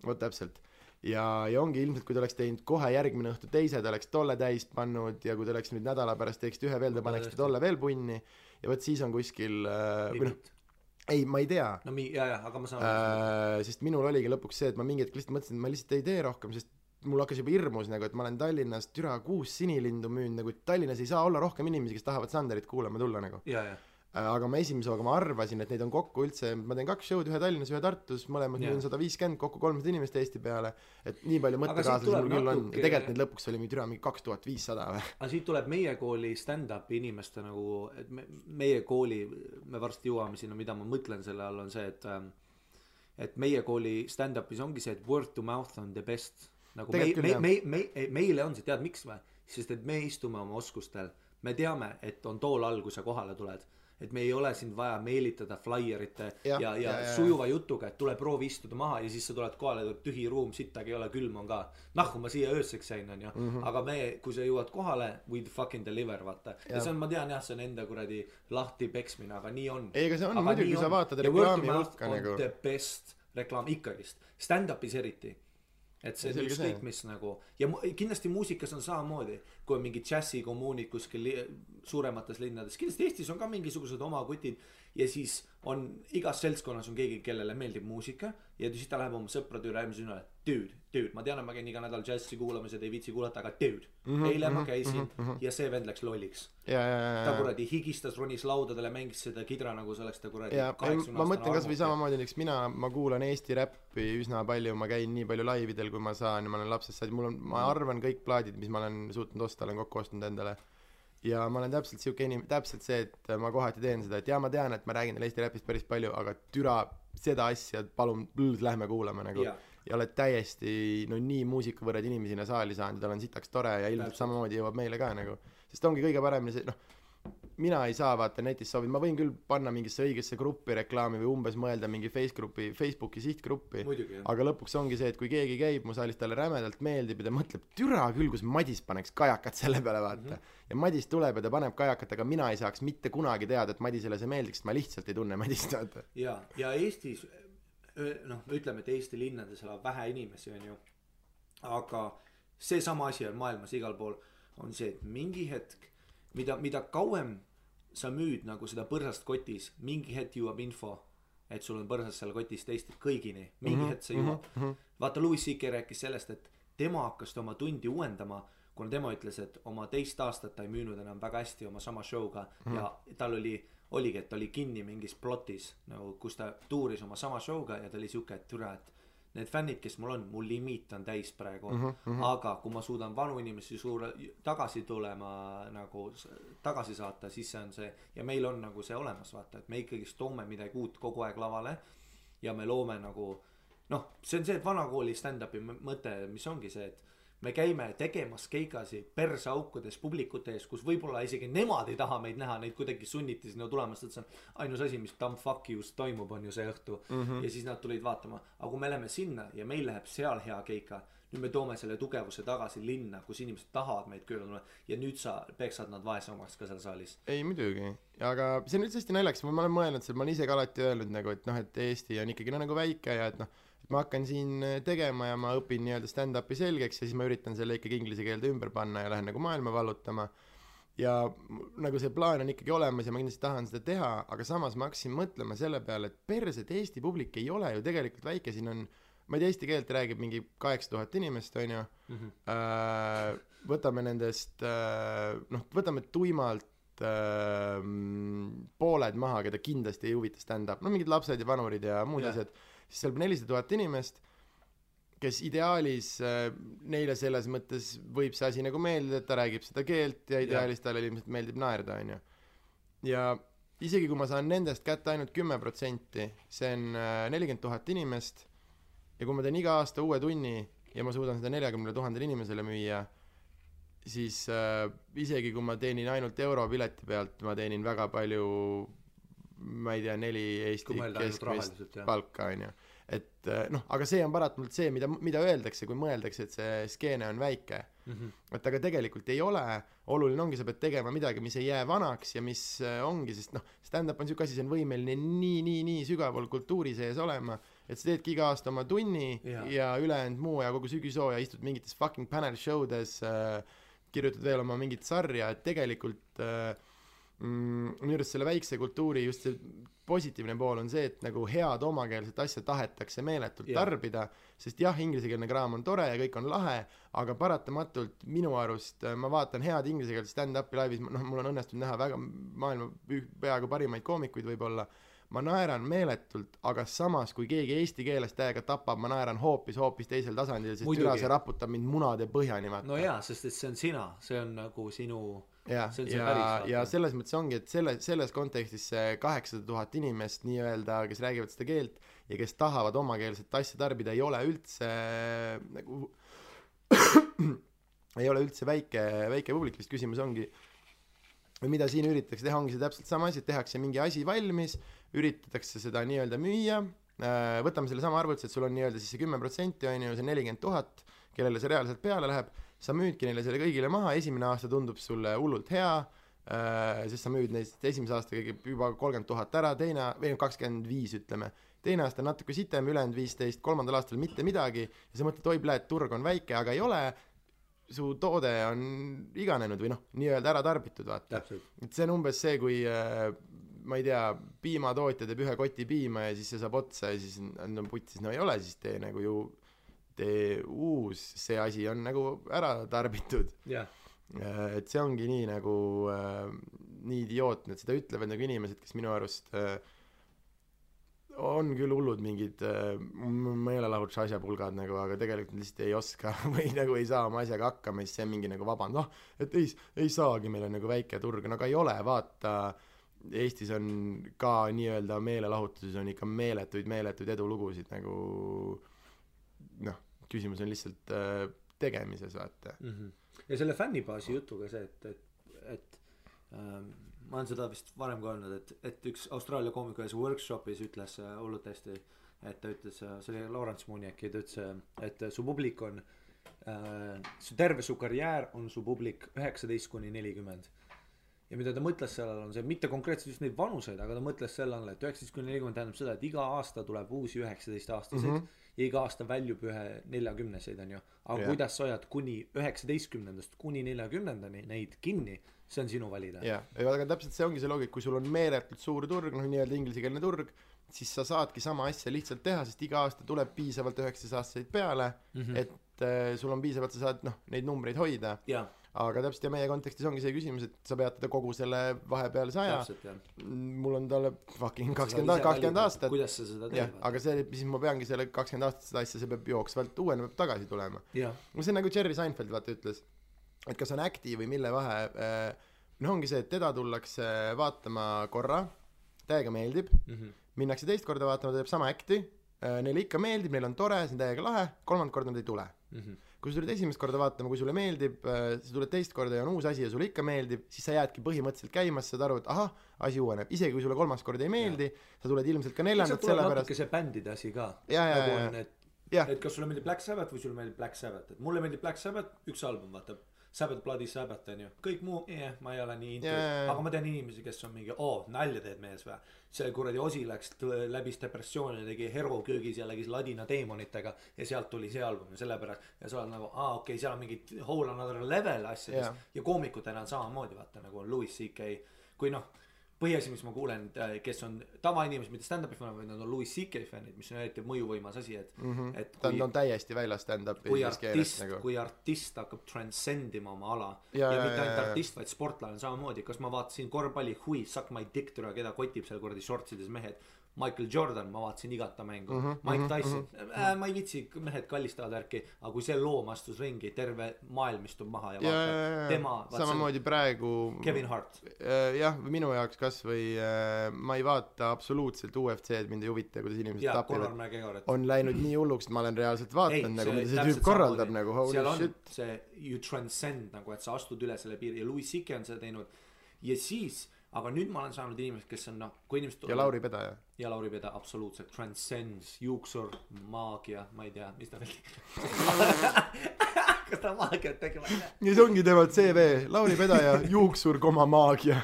Vot täpselt. Ja ongi ilmselt, kui ta oleks teinud kohe järgmine õhtu teise, ta oleks tolle täis pannud ja kui ta oleks nüüd nädala pärast teeksid ühe veel, ta paneks tolle veel punni ja võt siis on kuskil ei, ma ei tea no, aga ma saan sest minul oligi lõpuks see, et ma mingi hetk lihtsalt mõtlesin, et ma lihtsalt ei tee rohkem, sest mul hakkas juba hirmus nagu, et ma olen Tallinnas türa 6 sinilindu müünud, nagu Tallinnas ei saa olla rohkem inimesi, kes tahavad Sanderit kuulama tulla nagu aga ma esimese hooga ma arvasin, et neid on kokku üldse, ma teen 2 show'd, ühe Tallinnas, ühe Tartus, mõlemad nüüd on 150, kokku 300 inimest Eesti peale, et nii palju mõttekaaslasi mul küll on, ja tegelikult neid lõpuks oli mingi 2500 või? Aga siit tuleb meie kooli stand-upi inimeste nagu, et meie kooli, me varsti jõuame sinna, mida ma mõtlen selle all on see, et meie kooli stand-upis ongi see, et word to mouth on the best. Nagu meile on see, tead miks või? Sest et me istume oma oskustel, me teame, et on tool all, kui sa kohale tuled. Et me ei ole sind vaja meelitada flyerite ja sujuva jutuga, et tule proovi istuda maha ja siis sa tuled kohale, tuleb tühi ruum, sittagi ei ole, külm on ka. Nahku ma siia ööseks jäin, on ju. Aga kui sa jõuad kohale, we fucking deliver, vaata. Ja see on, ma tean jah, see on enda kuradi lahti peksmine, aga nii on. Ei, aga see on muidugi, kui sa vaatad reklaami hulka nagu. On the best reklaam ikkagist. Stand-upis eriti. Et see on ükskõik mis nagu ja kindlasti muusikas on samamoodi, kui on mingi džässi kommuunid kuskil suuremates linnades, kindlasti Eestis on ka mingisugused oma kutid ja siis on igas seltskonnas on keegi, kellele meeldib muusika ja siis ta läheb oma sõprade üle ja ütles, dude, ma tean, et ma käin iga nädal džässi kuulamas ja ei viitsi kuulata, aga dude, eile ma käisin ja see vend läks lolliks. Ta kuradi higistas, ronis laudadele, mängis seda kidra nagu see oleks ta kuradi 80 ma mõtlen kas või samamoodi, näiteks ma kuulan Eesti räppi üsna palju, ma käin nii palju laividel, kui ma saan ja ma olen lapsest saadi, ma arvan kõik plaadid, mis ma olen suutnud osta, olen kokku ostnud endale. Ja ma olen täpselt siuke täpselt see, et ma kohati teen seda, et ma tean, et ma räägin Eesti räpist päris palju, aga türa seda asja, palun, lähme kuulame nagu. Ja oled täiesti nii muusikavõrred inimesi sinna saali saanud ja tal on sitaks tore ja ilmselt samamoodi jõuab meile ka nagu. Sest ongi kõige paremini see, mina ei saa vaata netis soovida, ma võin küll panna mingisse õigesse gruppi reklaami või umbes mõelda mingi Facebooki sihtgruppi, aga lõpuks ongi see, et kui keegi käib mu saalis, talle rämedalt meeldib ja ta mõtleb, türa küll, kus Madis paneks kajakat selle peale vaata. Ja Madis tuleb ja ta paneb kajakat, aga mina ei saaks mitte kunagi teada, et Madisele see meeldiks, ma lihtsalt ei tunne Madist vaata. Ja Eestis, ütleme, et Eesti linnades elab vähe inimesi on ju, aga see sama asi on maailmas igal pool, on see, et mingi hetk mida kauem sa müüd nagu seda põrsast kotis, mingi hetk jõuab info, et sul on põrsast seal kotis teist kõigini, mingi hetk see jõuab. Vaata, Louis C.K. rääkis sellest, et tema hakkas oma tundi uuendama, kuna tema ütles, et oma 2 aastat ta ei müünud enam väga hästi oma sama showga ja tal oligi, et ta oli kinni mingis plotis, nagu, kus ta tuuris oma sama showga ja ta oli siuke, et türa, et need fännid, kes mul on, mul limiit on täis praegu, aga kui ma suudan vanu inimesi tagasi tulema nagu tagasi saata, siis see on see ja meil on nagu see olemas vaata, et me ikkagi toome midagi uut kogu aeg lavale ja me loome nagu see on see vanakooli stand-upi mõte, mis ongi see, et me käime tegemas keikasi persaukudes publikute ees, kus võib-olla isegi nemad ei taha meid näha, neid kuidagi sunniti sinna tulemas, et see on ainus asi, mis dumb fuck just toimub, on ju see õhtu ja siis nad tulid vaatama, aga kui me läheme sinna ja meil läheb seal hea keika, nüüd me toome selle tugevuse tagasi linna, kus inimesed tahavad meid külla tulla ja nüüd sa peksad nad vaesemaks ka seal saalis. Ei muidugi, aga see on üldse hästi naljaks, ma olen mõelnud, ma olen ise ka alati öelnud nagu, et Eesti on ikkagi nagu väike ja et ma hakkan siin tegema ja ma õpin nii-öelda stand-upi selgeks ja siis ma üritan selle ikkagi inglise keelde ümber panna ja lähen nagu maailma vallutama ja nagu see plaan on ikkagi olemas ja ma kindlasti tahan seda teha, aga samas ma hakkasin mõtlema selle peale, et perset Eesti publik ei ole ju tegelikult väike, siin on, ma ei tea, eesti keelt räägib mingi 8000 inimest, on ju, võtame nendest, võtame tuimalt pooled maha, keda kindlasti ei huvita stand-up, mingid lapsed ja vanurid ja muud asjad, siis seal 400 000 inimest, kes ideaalis neile selles mõttes võib see asi nagu meeldida, et ta räägib seda keelt ja ideaalis talle ilmselt meeldib naerda, on ju. Ja isegi kui ma saan nendest kätte ainult 10%, see on 40 000 inimest ja kui ma teen iga aasta uue tunni ja ma suudan seda 40 000 inimesele müüa, siis isegi kui ma teenin ainult europileti pealt, ma teenin väga palju, ma ei tea, 4 Eesti keskmist palka, on ju. Et aga see on paratult see, mida öeldakse, kui mõeldakse, et see skeene on väike. Et aga tegelikult ei ole, oluline ongi, sa pead tegema midagi, mis ei jää vanaks ja mis ongi, sest stand-up on siuke asi, see on võimeline nii sügaval kultuuri sees olema, et sa teedki iga aasta oma tunni ja ülejäänud muu ja kogu sügisoo ja istud mingites fucking panel showdes, kirjutad veel oma mingit sarja, et tegelikult minu arust selle väikse kultuuri just see positiivne pool on see, et nagu head omakeelset asja tahetakse meeletult tarbida, sest jah, inglisekeelne kraam on tore ja kõik on lahe, aga paratamatult minu arust ma vaatan head inglisekeelset stand-upi laivis, mul on õnnestunud näha väga maailma peaaegu parimaid koomikuid võib-olla, ma naeran meeletult, aga samas kui keegi eesti keeles täiega tapab, ma naeran hoopis teisel tasandil, sest üle see raputab mind munade põhjani vaata. No jaa, sest et see on sina, see on nagu sinu ja selles mõttes ongi, et selles kontekstis see 800 000 inimest nii-öelda, kes räägivad seda keelt ja kes tahavad omakeelset asja tarbida, ei ole üldse nagu ei ole üldse väike publik, vist küsimus ongi või mida siin üritatakse teha, ongi see täpselt sama asi, et tehakse mingi asi valmis, üritatakse seda nii-öelda müüa, võtame selle sama arvutuse, et sul on nii-öelda siis see 10% on ju, see 40 000, kellele see reaalselt peale läheb, sa müüdki neile selle kõigile maha, esimene aasta tundub sulle hullult hea, sest sa müüd neist esimese aasta juba 30 000 ära, või 25 ütleme, teine aasta natuke sitem, ülejäänud 15, kolmandal aastal mitte midagi ja sa mõtled, oi plee, et turg on väike, aga ei ole, su toode on iganenud või nii-öelda ära tarbitud, vaata. Et see on umbes see, kui ma ei tea, piimatootja teeb ühe koti piima ja siis see saab otsa ja siis on putsis, no ei ole, siis tee nagu ju tee uus, see asi on nagu ära tarbitud. Et see ongi nii nagu nii idiootne, et seda ütlevad nagu inimesed, kes minu arust on küll hullud mingid meelelahutuse asjapulgad nagu, aga tegelikult lihtsalt ei oska või nagu ei saa oma asjaga hakkama, siis see on mingi nagu vaband, et ei saagi, meil on nagu väike turg, no aga ei ole, vaata, Eestis on ka nii-öelda meelelahutuses on ikka meeletuid edulugusid nagu noh, küsimus on lihtsalt tegemises, vaata. Ja selle fännibaasi jutuga see, et ma olen seda vist varem ka öelnud, et üks Austraalia koomiku ühes workshopis ütles hullult hästi, et ta ütles, see oli Lawrence Muniaki, ta ütles, et su publik on terve su karjäär on su publik 19–40 ja mida ta mõtles sellel on see, mitte konkreetselt just neid vanuseid, aga ta mõtles sellele, et 19–40 tähendab seda, et iga aasta tuleb uusi 19-aastaseid ja iga aasta väljub ühe 40-seid on ju, aga kuidas sa hoiad kuni 19-ndast kuni 40-ndani neid kinni, see on sinu valida. Aga täpselt see ongi see loogik, kui sul on meeletult suur turg, nii-öelda inglisekeelne turg, siis sa saadki sama asja lihtsalt teha, sest iga aasta tuleb piisavalt 19-aastaseid peale, et sul on piisavalt, sa saad neid numbreid hoida. Aga täpselt ja meie kontekstis ongi see küsimus, et sa pead teda kogu selle vahepealse aja. Mul on talle fucking 20 aastat. Kuidas sa seda teed? Aga see, siis ma peangi selle 20 aastat seda asja, see peab jooksvalt uuena peab tagasi tulema. See nagu Jerry Seinfeld vaata ütles, et kas on acti või mille vahe, ongi see, et teda tullakse vaatama korra, täiega meeldib, minnakse teist korda vaatama, ta teeb sama acti, neile ikka meeldib, neil on tore, see on täiega lahe, kolmand kord nad ei tule. Kui sa tuled esimest korda vaatama, kui sulle meeldib, sa tuled teist korda ja on uus asi ja sulle ikka meeldib, siis sa jäädki põhimõtteliselt käimas, saad aru, et ahah, asi uueneb. Isegi kui sulle kolmas kord ei meeldi, sa tuled ilmselt ka neljandat selle pärast. Natuke see bändide asi ka. Et kas sulle meeldib Black Sabbath või sulle meeldib Black Sabbath. Et mulle meeldib Black Sabbath, üks album, vaata. Sabbath, Bloody Sabbath on ju. Kõik muu, ma ei ole nii aga ma tean inimesi, kes on mingi, nalja teed mees või. See kuradi Osi läbis depressiooni, tegi Hero köögis ja lägis Ladina Demonitega ja sealt tuli see album ja sellepärast ja sa oled nagu, okei, seal on mingid whole another level asjades ja koomikutena on samamoodi, vaata nagu on Louis C.K. Kui põhiasi, mis ma kuulen, kes on tavainimesed, mitte stand-upi fännid, vaid nad on Louis C.K. fännid, mis on eriti mõjuvõimas asi, et ta on täiesti väljas stand-upi kui artist hakkab transcendima oma ala ja mitte ainult artist, vaid sportlane samamoodi, kas ma vaatasin korvpalli Suck My Dick türa, keda kotib seal kuradi shortsides mehed, Michael Jordan, ma vaatasin igata mängu, Mike Tyson, ma ei vitsi, mehed kallistavad ärki, aga kui see loom astus ringi, terve maailm istub maha ja vaatab tema samamoodi praegu Kevin Hart minu jaoks kas või ma ei vaata absoluutselt UFC-d, mind ei huvita, kuidas inimesed tapivad, on läinud nii hulluks, et ma olen reaalselt vaatanud nagu, mida see tüüp korraldab nagu, holy shit see you transcend nagu, et sa astud üle selle piiri ja Louis C.K. on seda teinud ja siis aga nüüd ma olen saanud inimesed, kes on kui inimesed ja Lauri Pedaja ja Lauri Pedaja absoluutselt transcends, juuksur, maagia, ma ei tea, mis ta veel kas ta maagiat tegema ei näe ja see ongi tema CV, Lauri Pedaja, juuksur, maagia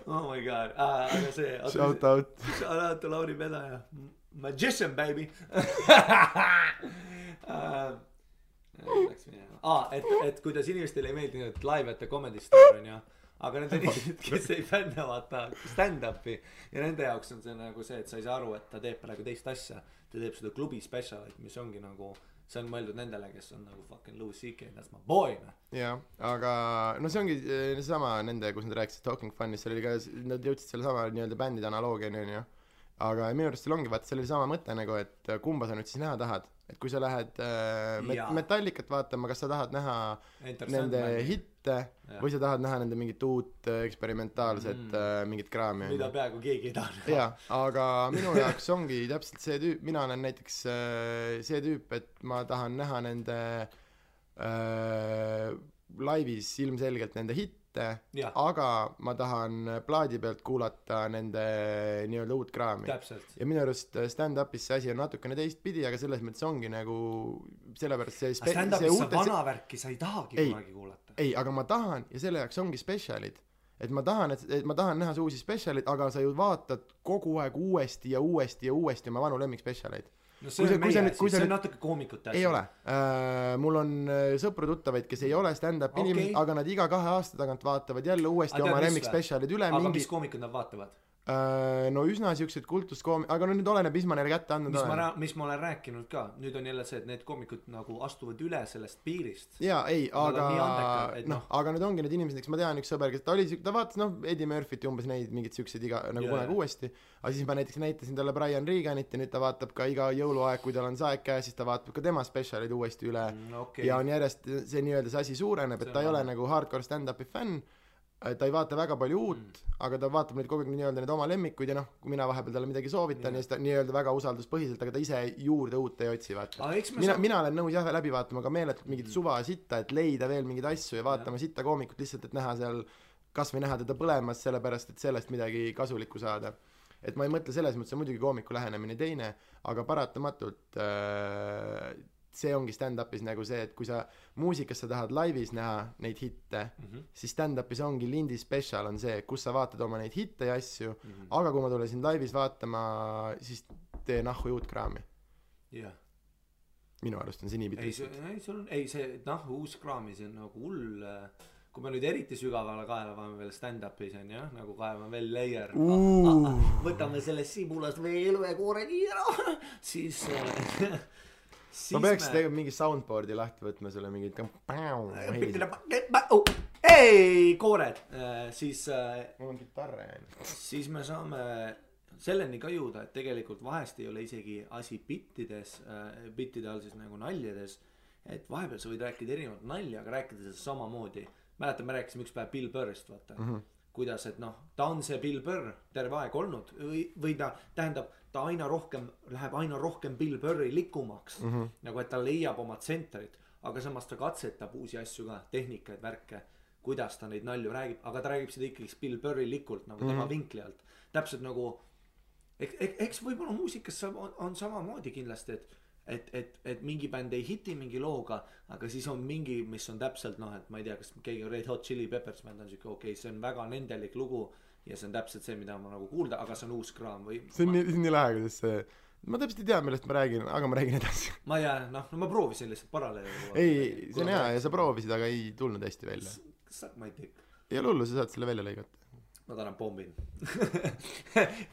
oh my god, aga see shout out to Lauri Pedaja, magician baby et kuidas inimestele ei meeldi nüüd live at the comedy store on ju, aga need inimesed, kes ei fänna vaata stand-upi ja nende jaoks on see nagu see, et sa ei saa aru, et ta teeb praegu teist asja, ta teeb seda klubi specialit, mis ongi nagu, see on mõeldud nendele, kes on nagu fucking Louis C.K. that's my boy jah, aga see ongi sama nende, kus nad rääkisid Talking Funnis, seal oli ka, nad jõudsid selle sama nii-öelda bändide analoogiani on ju, aga minu arust seal ongi vaata, seal oli sama mõte nagu, et kumba sa nüüd siis näha tahad, et kui sa lähed Metallicat vaatama, kas sa tahad näha nende hitte või sa tahad näha nende mingit uut eksperimentaalset mingit kraami mida peaaegu keegi ei taha aga minu jaoks ongi täpselt see tüüp, mina olen näiteks see tüüp, et ma tahan näha nende laivis ilmselgelt nende hitte aga ma tahan plaadi pealt kuulata nende nii-öelda uut kraami täpselt. Ja minu arust stand-upis see asi on natukene teistpidi, aga selles mõttes ongi nagu sellepärast see stand-upis sa vana värki sa ei tahagi kunagi kuulata aga ma tahan ja selle jaoks ongi spetsialid et ma tahan näha uusi spetsialeid, aga sa ju vaatad kogu aeg uuesti ja uuesti ja uuesti oma vanu lemmikspetsialeid. No see on natuke koomikute ei ole. Mul on sõpru-tuttavaid, kes ei ole stand-up inimesed, aga nad iga 2 aasta tagant vaatavad jälle uuesti oma lemmikspetsialid üle. Aga mis koomikud nad vaatavad? No üsna siuksed kultuskoomi, aga no nüüd oleneb, mis ma neile kätte andnud olen. Mis ma olen rääkinud ka, nüüd on jälle see, et need koomikud nagu astuvad üle sellest piirist. Jaa, ei, aga nüüd ongi need inimesed, eks ma tean üks sõber, kes ta vaatas Eddie Murphy't umbes neid mingid siuksed nagu kunagi uuesti, aga siis ma näiteks näitasin talle Brian Reganit ja nüüd ta vaatab ka iga jõuluaeg, kui tal on saeg käes, siis ta vaatab ka tema spetsialid uuesti üle ja on järjest see nii-öelda see asi suureneb, et ta ei ole nagu hardcore stand-upi fänn. Ta ei vaata väga palju uut, aga ta vaatab neid kogu aeg nii-öelda need oma lemmikuid ja kui mina vahepeal talle midagi soovitan ja siis ta nii-öelda väga usalduspõhiselt, aga ta ise juurde uut ei otsi, vaata. Mina olen nõus läbi vaatama ka meeletult mingit suva sitta, et leida veel mingeid asju ja vaatama sitta koomikut lihtsalt, et näha seal, kas või näha teda põlemas, sellepärast, et sellest midagi kasulikku saada. Et ma ei mõtle selles mõttes, muidugi koomiku lähenemine teine, aga paratamatult see ongi stand-upis nagu see, et kui sa muusikas sa tahad laivis näha neid hitte, siis stand-upis ongi lindi special on see, kus sa vaatad oma neid hitte ja asju, aga kui ma tulen siin laivis vaatama, siis tee nahhu uut kraami. Minu arust on see nii pidu. Ei, see nahhu uus kraami, see on nagu hull, kui me nüüd eriti sügavale kaevame veel stand-upis on jah, nagu kaevame veel layer, võtame sellest sibulast veel ühe kooregi ära, siis ma peaks tegema mingi soundboardi lahti võtma sulle mingid ei koored siis mul on kitarre siis me saame selleni ka jõuda, et tegelikult vahest ei ole isegi asi bittide all siis nagu naljades, et vahepeal sa võid rääkida erinevat nalja, aga rääkida seda samamoodi. Mäletan, me rääkisime üks päev Bill Burrist, vaata kuidas, et ta on see Bill Burr terve aeg olnud või ta tähendab ta läheb aina rohkem Bill Burri likumaks, nagu et ta leiab oma tsentrit, aga samas ta katsetab uusi asju ka, tehnikaid, värke, kuidas ta neid nalju räägib, aga ta räägib seda ikkagi Bill Burri likult, nagu tema vinkli alt. Täpselt nagu, eks võib-olla muusikas on samamoodi kindlasti, et mingi bänd ei hiti mingi looga, aga siis on mingi, mis on täpselt et ma ei tea, kas keegi Red Hot Chili Peppers bänd on siuke, see on väga nendelik lugu, ja see on täpselt see, mida ma nagu kuulda, aga see on uus kraam või... See on nii lahe, kuidas see... Ma täpselt ei tea, millest ma räägin, aga ma räägin edasi. Ma ma proovisin lihtsalt paralleeli. Ei, see on hea ja sa proovisid, aga ei tulnud hästi välja. Suck my dick. Ei ole hullu, sa saad selle välja lõigata. Ma tänan pombin.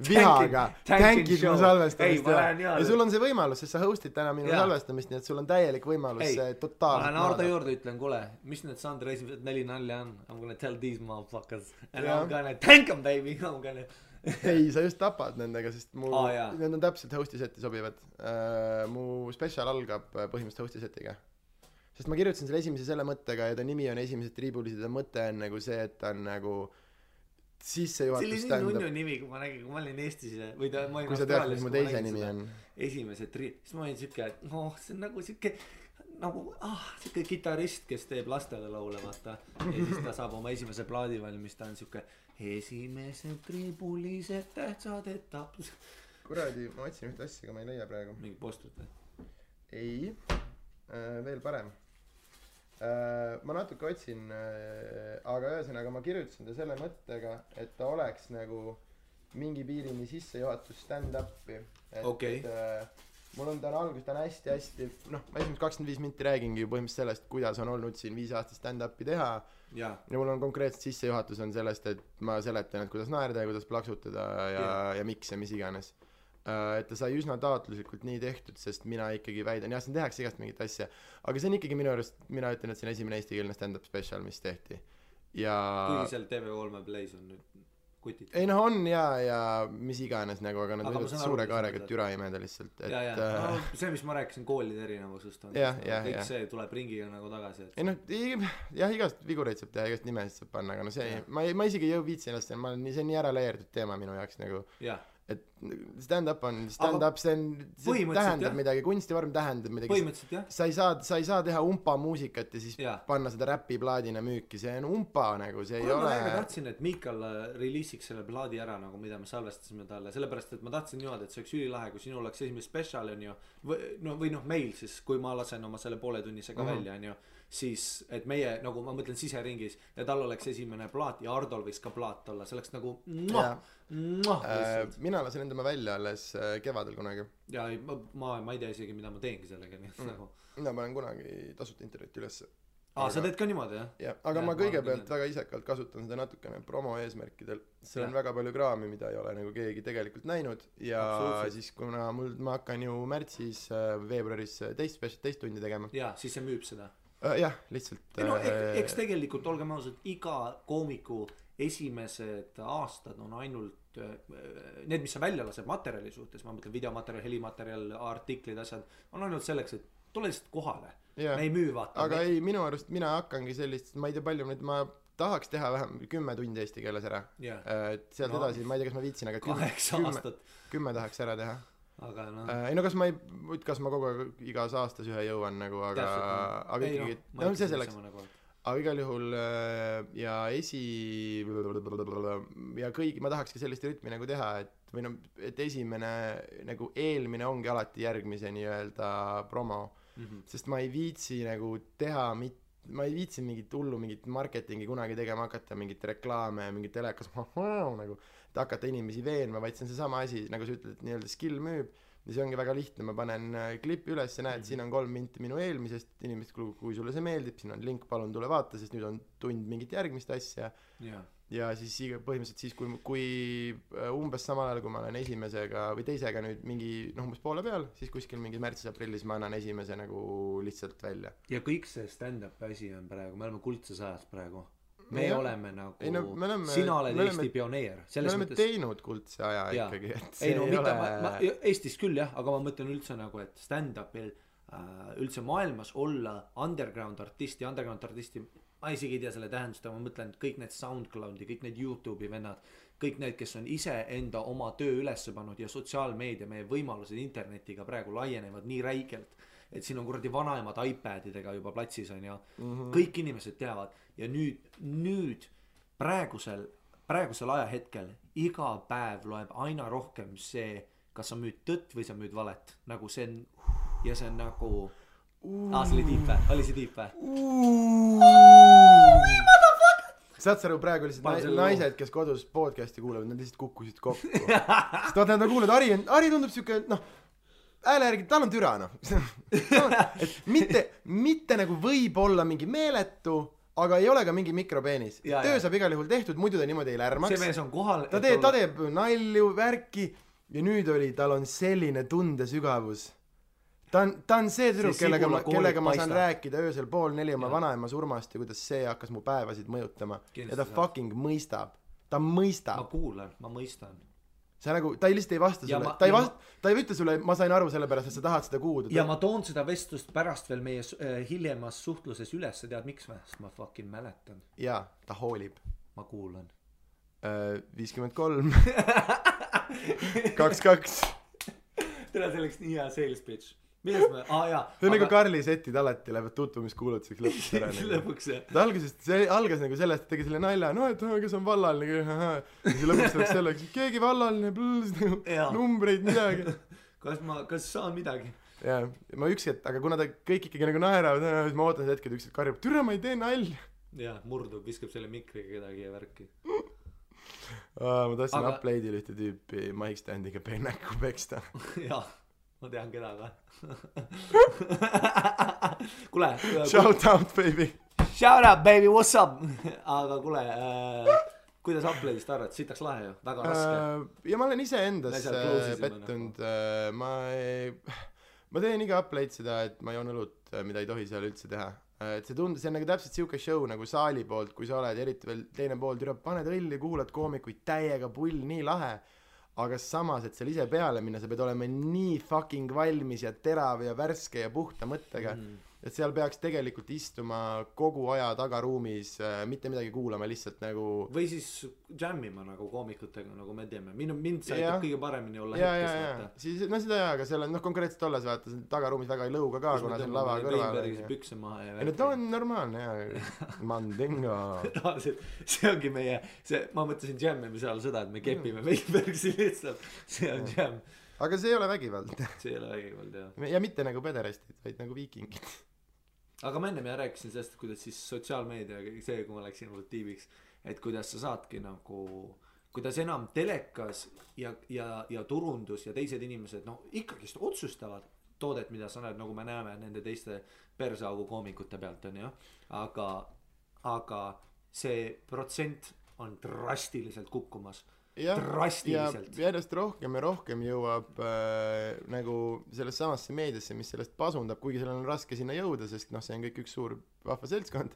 Vihaga. Tankid mu salvestamist. Ja sul on see võimalus, sest sa hostid täna minu salvestamist, nii et sul on täielik võimalus totaalselt. Ma Ardo juurde ütlen, kuule, mis need Sandri esimesed 4 nalja on? I'm gonna tell these motherfuckers. And I'm gonna tank them, baby. I'm gonna... Ei, sa just tapad nendega, sest need on täpselt hosti seti sobivad. Mu special algab põhimõtteliselt hosti setiga. Sest ma kirjutasin selle esimese selle mõttega ja ta nimi on esimesed triibulised ja mõte on nagu see, et ta on nagu sissejuhatus stand-up. See oli nii nunnu nimi, kui ma nägin, kui ma olin Eestis või kui sa tead, mis mu teise nimi on. Esimesed siis ma olin siuke, et see on nagu siuke siuke kitarist, kes teeb lastele laule, vaata. Ja siis ta saab oma esimese plaadi valmis, ta on siuke esimesed triibulised tähtsad etapid. Kuradi, ma otsin ühte asja, aga ma ei leia praegu. Mingi postut või? Ei, veel parem. Ma natuke otsin, aga ühesõnaga ma kirjutasin ta selle mõttega, et ta oleks nagu mingi piirini sissejuhatus stand-upi. Mul on ta alguses, ta on hästi, ma esimest 25 minti räägingi põhimõtteliselt sellest, kuidas on olnud siin 5 aastat stand-upi teha. Ja mul on konkreetselt sissejuhatus on sellest, et ma seletan, et kuidas naerda ja kuidas plaksutada ja miks ja mis iganes. Et ta sai üsna taotluslikult nii tehtud, sest mina ikkagi väidan, siin tehakse igast mingit asja, aga see on ikkagi minu arust, mina ütlen, et see on esimene eestikeelne stand-up special, mis tehti. Kuigi seal TV3 Plays on nüüd kutid. Ei on ja mis iganes nagu, aga nad võivad suure kaarega türa imeda lihtsalt. See, mis ma rääkisin koolide erinevusest on, kõik see tuleb ringiga nagu tagasi. Igast vigureid saab teha, igast nimesid saab panna, aga see, ma isegi ei viitsi ennast, see on nii ära leierdatud teema minu jaoks nagu, et stand-up on stand-up, see tähendab midagi, kunstivorm tähendab midagi. Põhimõtteliselt jah. Sa ei saa teha umpa muusikat ja siis panna seda räpiplaadina müüki, see on umpa nagu, see ei ole. Ma tahtsin, et Miikal reliisiks selle plaadi ära nagu, mida me salvestasime talle, sellepärast, et ma tahtsin niimoodi, et see oleks ülilahe, kui sinul oleks esimene special on ju, või meil siis, kui ma lasen oma selle pooletunnise ka välja on ju, siis, et meie, nagu ma mõtlen siseringis ja tal oleks esimene plaat ja Ardol võiks ka plaat olla, see oleks nagu mina lasen enda välja alles kevadel kunagi. Ja ma ei tea isegi, mida ma teengi sellega, nii et nagu mina panen kunagi tasuta internetti ülesse. Sa teed ka niimoodi, jah? Ja, aga ma kõigepealt väga isekalt kasutan seda natukene promo eesmärkidel. See on väga palju kraami, mida ei ole nagu keegi tegelikult näinud ja siis kuna ma hakkan ju märtsis, veebruaris teist tundi tegema. Ja, siis see müüb seda. Jah, lihtsalt eks tegelikult olgem ausad, iga koomiku esimesed aastad on ainult need, mis sa välja laseb materjali suhtes, ma mõtlen videomaterjal, helimaterjal, artiklid, asjad on ainult selleks, et tule lihtsalt kohale. Me ei müü vaata. Aga ei, minu arust mina hakkangi sellist, ma ei tea palju, ma tahaks teha vähem 10 tundi eesti keeles ära. Sealt edasi, ma ei tea, kas ma viitsin, aga 10 tahaks ära teha. Aga ei no kas ma kogu aeg igas aastas ühe jõuan nagu, aga ikkagi see selleks, aga igal juhul ja ma tahakski sellist rütmi nagu teha, et esimene nagu eelmine ongi alati järgmise nii-öelda promo, sest ma ei viitsi nagu teha ma ei viitsi mingit hullu, mingit marketingi kunagi tegema hakata, mingit reklaame, mingit telekas nagu et hakata inimesi veenma, vaid see on see sama asi, nagu sa ütled, et nii-öelda skill müüb ja see ongi väga lihtne, ma panen klipi üles ja näed, siin on 3 minti minu eelmisest inimest, kui sulle see meeldib, siin on link, palun tule vaata, sest nüüd on tund mingit järgmist asja ja siis põhimõtteliselt siis, kui umbes samal ajal, kui ma olen esimesega või teisega nüüd mingi umbes poole peal, siis kuskil mingi märtsis-aprillis ma annan esimese nagu lihtsalt välja. Ja kõik see stand-up asi on praegu, me oleme kuldses ajas praegu. Me oleme nagu, sina oled Eesti pioneer. Me oleme teinud kuldse aja ikkagi, et see ei ole... Eestis küll jah, aga ma mõtlen üldse nagu, et stand-upil üldse maailmas olla underground artisti, ma isegi ei tea selle tähendust, aga ma mõtlen, et kõik need SoundCloudi, kõik need YouTube'i vennad, kõik need, kes on ise enda oma töö üles pannud ja sotsiaalmeedia, meie võimalused internetiga praegu laienevad nii räigelt, et siin on kuradi vanaemad iPadidega juba platsis on ja kõik inimesed teavad ja nüüd praegusel ajahetkel iga päev loeb aina rohkem see, kas sa müüd tõtt või sa müüd valet, nagu see on ja see on nagu see oli see tiip vä? Saad sa aru, praegu lihtsalt naised, kes kodus podcasti kuulevad, nad lihtsalt kukkusid kokku. Sest vaata, nad kuuled, Ari tundub siuke, hääle järgi, tal on türa, mitte nagu võib olla mingi meeletu, aga ei ole ka mingi mikropeenis. Töö saab igal juhul tehtud, muidu ta niimoodi ei lärmaks. See mees on kohal. Ta teeb nalju, värki ja nüüd tal on selline tundesügavus. Ta on see tüdruk, kellega ma saan rääkida öösel 3:30 oma vanaema surmast ja kuidas see hakkas mu päevasid mõjutama. Ja ta fucking mõistab. Ta mõistab. Ma kuulan, ma mõistan. See nagu, ta lihtsalt ei vasta sulle. Ta ei ütle sulle, ma sain aru sellepärast, et sa tahad seda kuuda. Ja ma toon seda vestlust pärast veel meie hiljemas suhtluses üles, sa tead miks või? Sest ma fucking mäletan. Jaa, ta hoolib. Ma kuulan. 53 22 Tere selleks nii hea sales pitch. Millest me? Jaa. See on nagu Karli setid alati lähevad tutvumiskuulutuseks lõpuks ära. Lõpuks jah. Ta algas nagu sellest, et tegi selle nalja, et kes on vallaline. Ja siis lõpuks oleks selleks, keegi vallaline, numbreid, midagi. Kas saan midagi? Jaa, ma üks hetk, aga kuna ta kõik ikkagi nagu naeravad, siis ma ootan seda hetke, et üks hetk karjub, türa ma ei tee nalja. Jaa, murdub, viskab selle mikriga kedagi ja värki. Ma tahtsin upplade'il ühte tüüpi maikstandiga näkku peksta. Jaa. Ma tean keda ka. Kule. Shout out, baby. Shout out, baby, what's up? Aga kule, kuidas uploadist arvad? Sitaks lahe ju, väga raske. Ja ma olen ise endas pettunud. Ma teen iga upload seda, et ma joon õlut, mida ei tohi seal üldse teha. Et see on nagu täpselt siuke show nagu saali poolt, kui sa oled eriti veel teine pool, paned õlli, kuulad koomikuid täiega pull, nii lahe. Aga samas, et seal ise peale minna, sa pead olema nii fucking valmis ja terav ja värske ja puhta mõttega. et seal peaks tegelikult istuma kogu aja tagaruumis, mitte midagi kuulama, lihtsalt nagu või siis jammima nagu koomikutega, nagu me teeme. Mind saitab kõige paremini olla hetkes, vaata. Siis, no seda aga seal on, konkreetselt olles vaata, tagaruumis väga ei lõuga ka, kuna see on lava kõrval. Pükse maha ja no ta on normaalne, jah. Mandingo. See ongi meie, ma mõtlesin jammimise all seda, et me kepime Veinbergsi lihtsalt. See on jam. Aga see ei ole vägivald. See ei ole vägivald, jah. Ja mitte nagu pederastid, vaid nagu viikingid. Aga ma ennem rääkisin sellest, kuidas siis sotsiaalmeedia, see, kui ma läksin innovatiiviks, et kuidas sa saadki nagu, kuidas enam telekas ja turundus ja teised inimesed, ikkagist otsustavad toodet, mida sa näed, nagu me näeme nende teiste persaugu koomikute pealt, on ju. Aga see protsent on drastiliselt kukkumas. Ja drastiliselt. Järjest rohkem ja rohkem jõuab nagu selles samasse meediasse, mis sellest pasundab, kuigi sellel on raske sinna jõuda, sest see on kõik üks suur vahva seltskond.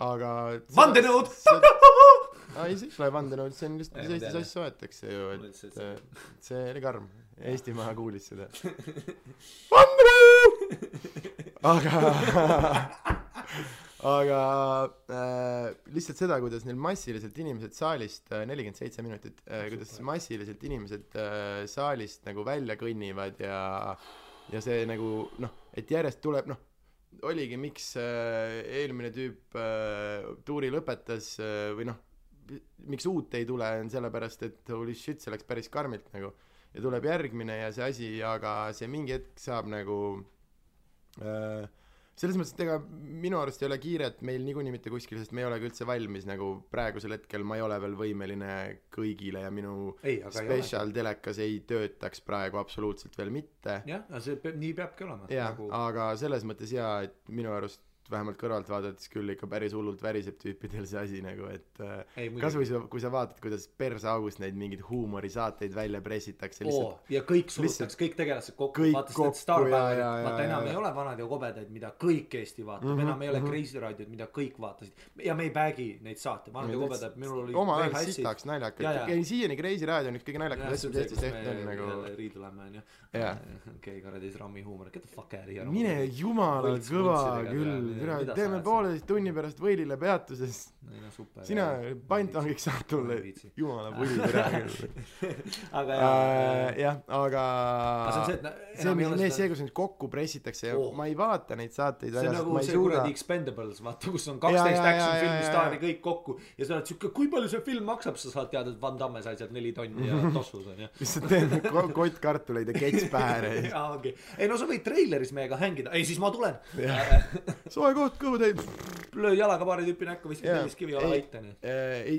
Aga vandenõud! Ei, see pole vandenõud, see on lihtsalt, mis Eestis asju soetakse ju, et see oli karm. Eestimaa kuulis seda. Vandenõud! Aga lihtsalt seda, kuidas neil massiliselt inimesed saalist 47 minutit, kuidas massiliselt inimesed saalist nagu välja kõnnivad ja see nagu et järjest tuleb oligi miks eelmine tüüp tuuri lõpetas või miks uut ei tule, on sellepärast, et holy shit, see läks päris karmilt nagu ja tuleb järgmine ja see asi, aga see mingi hetk saab nagu selles mõttes, et ega minu arust ei ole kiiret meil niikuinii mitte kuskil, sest me ei olegi üldse valmis nagu praegusel hetkel ma ei ole veel võimeline kõigile ja minu special telekas ei töötaks praegu absoluutselt veel mitte. Jah, see nii peabki olema. Jah, aga selles mõttes et minu arust vähemalt kõrvalt vaadates küll ikka päris hullult väriseb tüüpidel see asi nagu, et kasvõi kui sa vaatad, kuidas persaaugust neid mingeid huumorisaateid välja pressitakse lihtsalt. Ja kõik surutakse, kõik tegelased kokku, vaatasid Starpowerit, vaata enam ei ole vanad ja kobedaid, mida kõik Eesti vaatab, enam ei ole Crazy Radiot, mida kõik vaatasid ja me ei bägi neid saate, vanad ja kobedaid, minul oli oma ajal sitaks naljakad, siiani Crazy Radio on üks kõige naljakad asjad Eestis tehtud on nagu riiduleme on ju, okei, Karadis Rammi huumor, get the fuck out of here mine jumala kõva küll teeme 1,5 tunni pärast Võilile peatuses sina pantvangiks saad tulla jumala puli aga aga see kus nüüd kokku pressitakse ja ma ei vaata neid saateid see on nagu see kuradi Expendables vaata kus on 12 action filmi staari kõik kokku ja sa oled siuke kui palju see film maksab sa saad teada et Van Damme sai sealt 4 tonni ja tossus on lihtsalt teed kott kartuleid ja kets pähe ei no sa võid treileris meiega hängida ei siis ma tulen soe koht kõhu teid löö jalaga paari tüüpi näkku viskab telliskivi ole aitani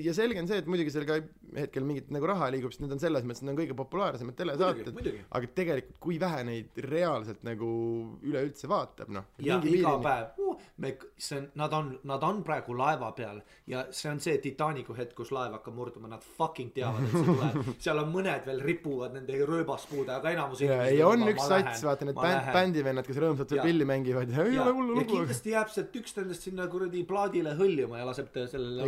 ja selge on see et muidugi seal ka hetkel mingit nagu raha liigub sest need on selles mõttes need on kõige populaarsemad telesaated aga tegelikult kui vähe neid reaalselt nagu üleüldse vaatab ja iga päev nad on praegu laeva peal ja see on see Titanicu hetk kus laev hakkab murduma nad fucking teavad et see tuleb seal on mõned veel ripuvad nende rööbaspuude aga enamus ei on üks sats vaata need bändivennad kes rõõmsalt veel pilli mängivad ja ei ole hullu lugu kindlasti jääb sealt üks nendest sinna kuradi plaadile hõljuma ja laseb sellele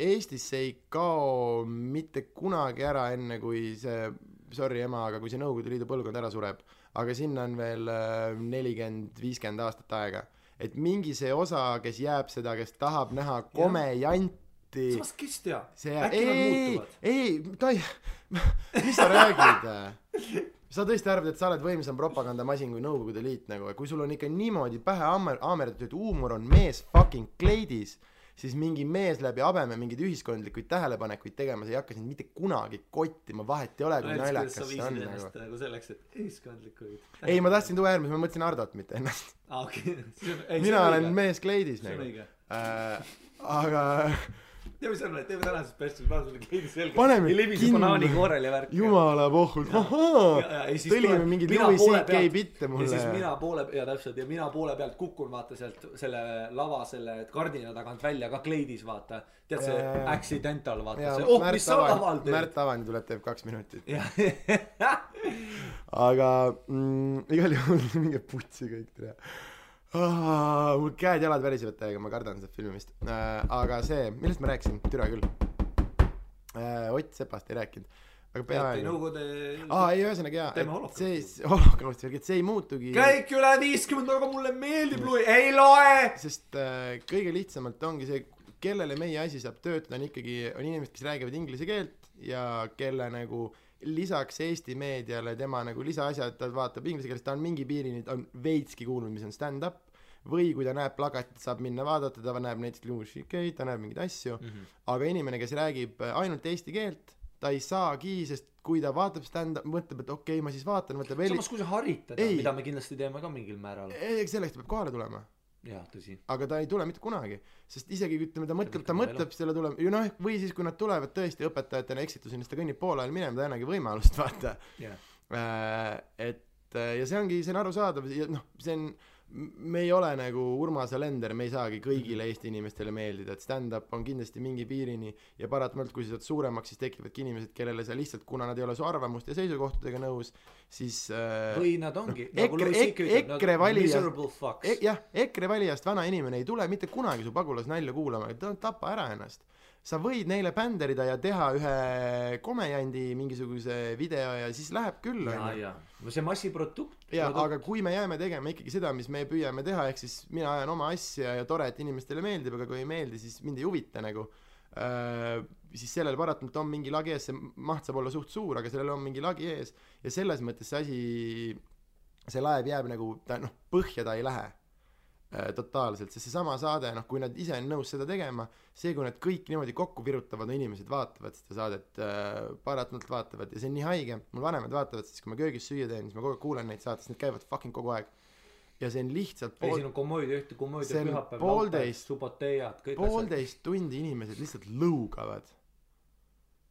Eestisse ei kao mitte kunagi ära enne kui see sorry ema aga kui see Nõukogude Liidu põlvkond ära sureb aga sinna on veel 40-50 aastat aega et mingi see osa kes jääb seda kes tahab näha komejanti samas kes tea äkki nad muutuvad mis sa räägid sa tõesti arvad, et sa oled võimsam propagandamasin kui Nõukogude Liit nagu, kui sul on ikka niimoodi pähe aamerdatud, et huumor on mees fucking kleidis, siis mingi mees läbi habeme mingeid ühiskondlikuid tähelepanekuid tegema, sa ei hakka sind mitte kunagi kottima, vahet ei ole, kui naljakas see on nagu selleks, et ühiskondlikuid ei, ma tahtsin tuua äärmis, ma mõtlesin Ardot, mitte ennast mina olen mees kleidis nagu aga teeme tänasest pestus praegusele kleidis selge ei levis banaani koorel ja värk jumala pohult tõlgime mingid Louis C.K. bitte mulle ja siis mina poole pealt kukun vaata sealt selle lava selle kardina tagant välja ka kleidis vaata tead see accidental vaata see mis sa laval teed Märt Avandi tuleb teeb 2 minutit aga igal juhul mingi putsi kõik tere mul käed jalad värisevad täiega, ma kardan seda filmimist aga see, millest ma rääkisin, türa küll Ott Sepast ei rääkinud aga peaaegu Nõukogude ei ühesõnaga jaa teeme holokaust veel, et see ei muutugi kõik üle 50, aga mulle meeldib ei loe sest kõige lihtsamalt ongi see kellele meie asi saab töötada on ikkagi on inimesed kes räägivad inglise keelt ja kelle nagu lisaks Eesti meediale tema nagu lisaasjad ta vaatab inglise keeles ta on mingi piirini ta on veitski kuulnud mis on stand-up või kui ta näeb plakatit saab minna vaadata ta näeb näiteks luušikeid ta näeb mingeid asju aga inimene kes räägib ainult eesti keelt ta ei saagi sest kui ta vaatab stand-up mõtleb et okei, ma siis vaatan samas kui sa haritada mida me kindlasti teeme ka mingil määral selleks ta peab kohale tulema jah, tõsi aga ta ei tule mitte kunagi sest isegi ütleme ta mõtleb selle tuleb ju noh või siis kui nad tulevad tõesti õpetajatena eksituseni siis ta kõnnib poole ajal minema ta ei annagi võimalust vaata et ja see ongi see on arusaadav ja noh see on me ei ole nagu Urmas Alender me ei saagi kõigile Eesti inimestele meeldida et stand-up on kindlasti mingi piirini ja paratamatult kui sa saad suuremaks siis tekivadki inimesed kellele sa lihtsalt kuna nad ei ole su arvamust ja seisukohtadega nõus siis või nad ongi EKRE valijast jah EKRE valijast vana inimene ei tule mitte kunagi su pagulasnalja kuulama et tapa ära ennast sa võid neile bänderida ja teha ühe komejandi mingisuguse video ja siis läheb küll see massiprodukt aga kui me jääme tegema ikkagi seda mis me püüame teha ehk siis mina ajan oma asja ja tore et inimestele meeldib aga kui ei meeldi siis mind ei huvita nagu siis sellel paratamatult on mingi lagi ees see maht saab olla suht suur aga sellel on mingi lagi ees ja selles mõttes see asi see laev jääb nagu ta põhja ta ei lähe totaalselt, sest seesama saade, kui nad ise on nõus seda tegema, see kui nad kõik niimoodi kokku virutavad, inimesed vaatavad seda saadet, paratamatult vaatavad ja see on nii haige, mul vanemad vaatavad, siis kui ma köögis süüa teen, siis ma kogu aeg kuulen neid saates, need käivad fucking kogu aeg ja see on lihtsalt siin on komöödia pühapäev, laupäev, suboteiad, kõik poolteist tundi inimesed lihtsalt lõugavad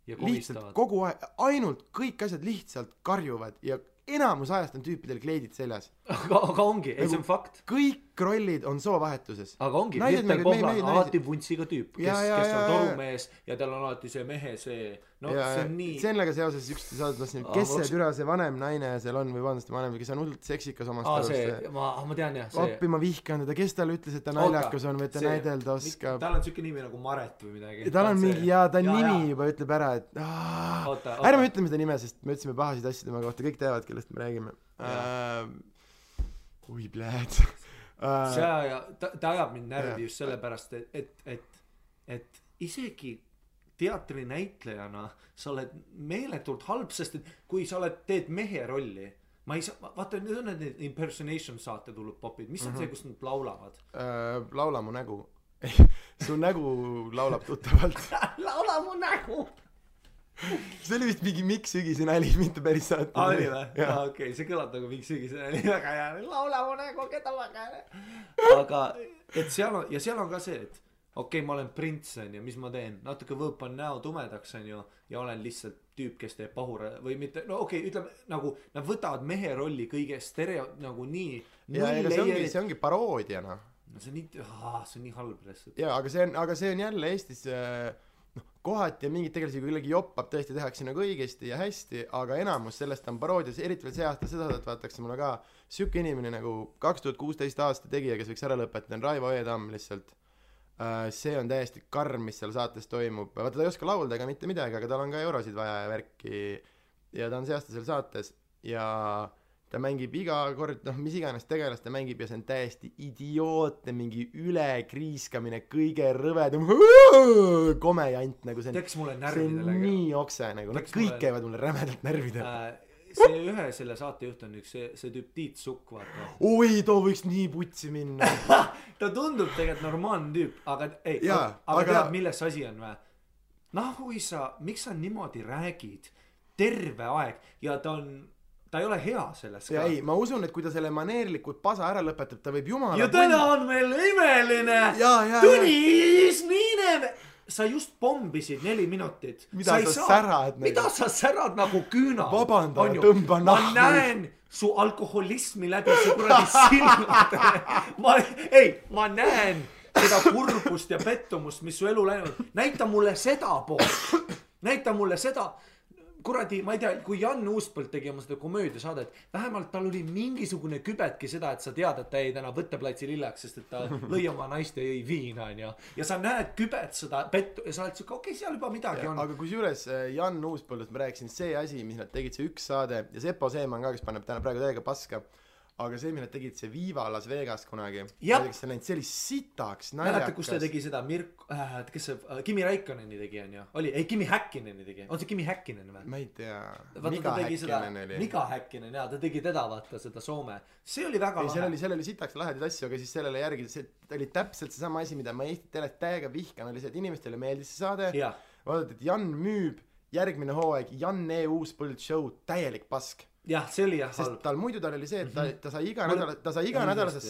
ja komistavad kogu aeg, ainult kõik asjad lihtsalt karjuvad ja enamus ajast on tüüpidel kleidid seljas aga ongi, see on fakt kõik rollid on soovahetuses aga ongi, Virtel Pohlan on alati vuntsiga tüüp kes on torumees ja tal on alati see mehe see see on nii sellega seoses üks saadet kes see türa see vanem naine seal on või vabandust vanem kes on hullult seksikas omast arust ma tean jah appi ma vihkan teda kes talle ütles et ta naljakas on või et ta näidelda oskab tal on siuke nimi nagu Maret või midagi tal on mingi ta nimi juba ütleb ära et ärme ütleme seda nime sest me ütlesime pahasid asju tema kohta kõik teavad kellest me räägime ui pljääd ta ajab mind närvi just sellepärast et isegi teatrinäitlejana sa oled meeletult halb sest et kui sa teed mehe rolli ma ei saa vaata need on need impersonation saate tulnud popid mis on see kus nad laulavad laula mu nägu su nägu laulab tuttavalt laula mu nägu see oli vist mingi Mikk Sügise nali, mitte päris saate. Oli või? Okei, see kõlab nagu Mikk Sügise nali, väga hea, laula mu nägu, keda väga hea. Aga, et seal on ka see, et okei, ma olen prints, on ju, mis ma teen? Natuke võõpan näo tumedaks, on ju, ja olen lihtsalt tüüp, kes teeb pahura, või mitte, no okei, ütleme, nagu nad võtavad mehe rolli kõige nagu nii. Ja ega see ongi paroodia, noh. No see on nii halb lihtsalt. Ja, aga see on jälle Eestis kohati ja mingid tegelasi kui kellegi joppab tõesti tehakse nagu õigesti ja hästi, aga enamus sellest on paroodias, eriti veel see aasta seda vaadatakse mulle ka süke inimene nagu 2016 aasta tegija, kes võiks ära lõpetada, on Raivo Eetamm lihtsalt. See on täiesti karm, mis seal saates toimub. Vaata, ta ei oska laulda ega mitte midagi, aga tal on ka eurosid vaja ja värki ja ta on see aasta seal saates ja ta mängib iga kord, mis iganes tegelast ta mängib ja see on täiesti idiootne, mingi ülekriiskamine, kõige rõvedam komejant, nagu see on nii okse, nagu kõik käivad mulle rämedalt närvidel. See ühe selle saatejuht on üks, see tüüp Tiit Sukk, vaata. Oi, too võiks nii putsi minna. Ta tundub tegelikult normaalne tüüp, aga tead, milles asi on või? Miks sa niimoodi räägid terve aeg ja ta ei ole hea selles ka. Ei, ma usun, et kui ta selle maneerlikult pasa ära lõpetab, ta võib jumala... Ja täna on meil imeline Tõnis Niine... Sa just pombisid 4 minutit. Mida sa särad? Mida sa särad nagu küünal? Vabanda, tõmba nahku. Ma näen su alkoholismi läbi su kuradi silmad. Ma näen seda kurbust ja pettumust, mis su elu läinud. Näita mulle seda poolt. Näita mulle seda... kuradi, ma ei tea, kui Jan Uuspõld tegi oma seda komöödiasaadet, vähemalt tal oli mingisugune kübetki seda, et sa tead, et ta jäi täna Võtteplatsi lillaks, sest et ta lõi oma naist ja jõi viina, onju. Ja sa näed kübet seda pettu ja sa oled siuke, okei, seal juba midagi on. Aga kusjuures Jan Uuspõldust ma rääkisin see asi, mis nad tegid, see üks saade ja Sepo Seeman ka, kes paneb täna praegu täiega paska. Aga see, mis nad tegid, see Viva Las Vegas kunagi. See oli sitaks naljakas. Mäleta, kus ta tegi seda kes see Kimi Räikköneni tegi, on ju? Kimi Häkkineni tegi. On see Kimi Häkkinen või? Ma ei tea. Miga Häkkinen oli. Miga Häkkinen, jaa. Ta tegi teda, vaata, seda Soome. See oli väga lahe. Seal oli sitaks lahedid asju, aga siis sellele järgi, see oli täpselt see sama asi, mida ma Eesti teles täiega vihkan, oli see, et inimestele meeldis see saade. Vaadati, et Jan müüb järgmine hooaeg Jan E. Uuspõld show täielik pask. Jah, see oli jah halb. Sest muidu tal oli see, et ta sai iga nädalases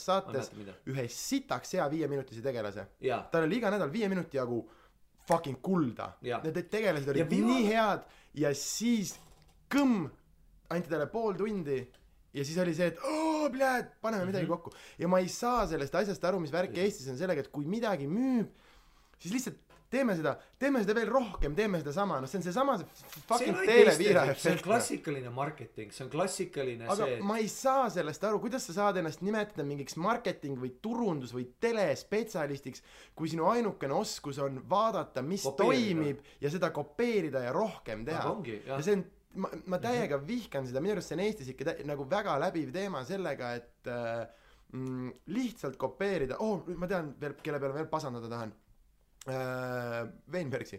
saates ühe sitaks hea 5-minutise tegelase. Tal oli iga nädal 5 minuti jagu fucking kulda. Need tegelased olid nii head ja siis anti talle pool tundi ja siis oli see, et paneme midagi kokku. Ja ma ei saa sellest asjast aru, mis värk Eestis on sellega, et kui midagi müüb, siis lihtsalt teeme seda veel rohkem, teeme seda sama, see on see sama fucking televiira efekt. See on klassikaline marketing, see on klassikaline aga see. Aga ma ei saa sellest aru, kuidas sa saad ennast nimetada mingiks marketing või turundus või telespetsialistiks, kui sinu ainukene oskus on vaadata, mis toimib ja seda kopeerida ja rohkem teha. Ja see on, ma täiega vihkan seda, minu arust see on Eestis ikka nagu väga läbiv teema sellega, et lihtsalt kopeerida, ma tean, kelle peale veel pasandada tahan. Weinbergsi,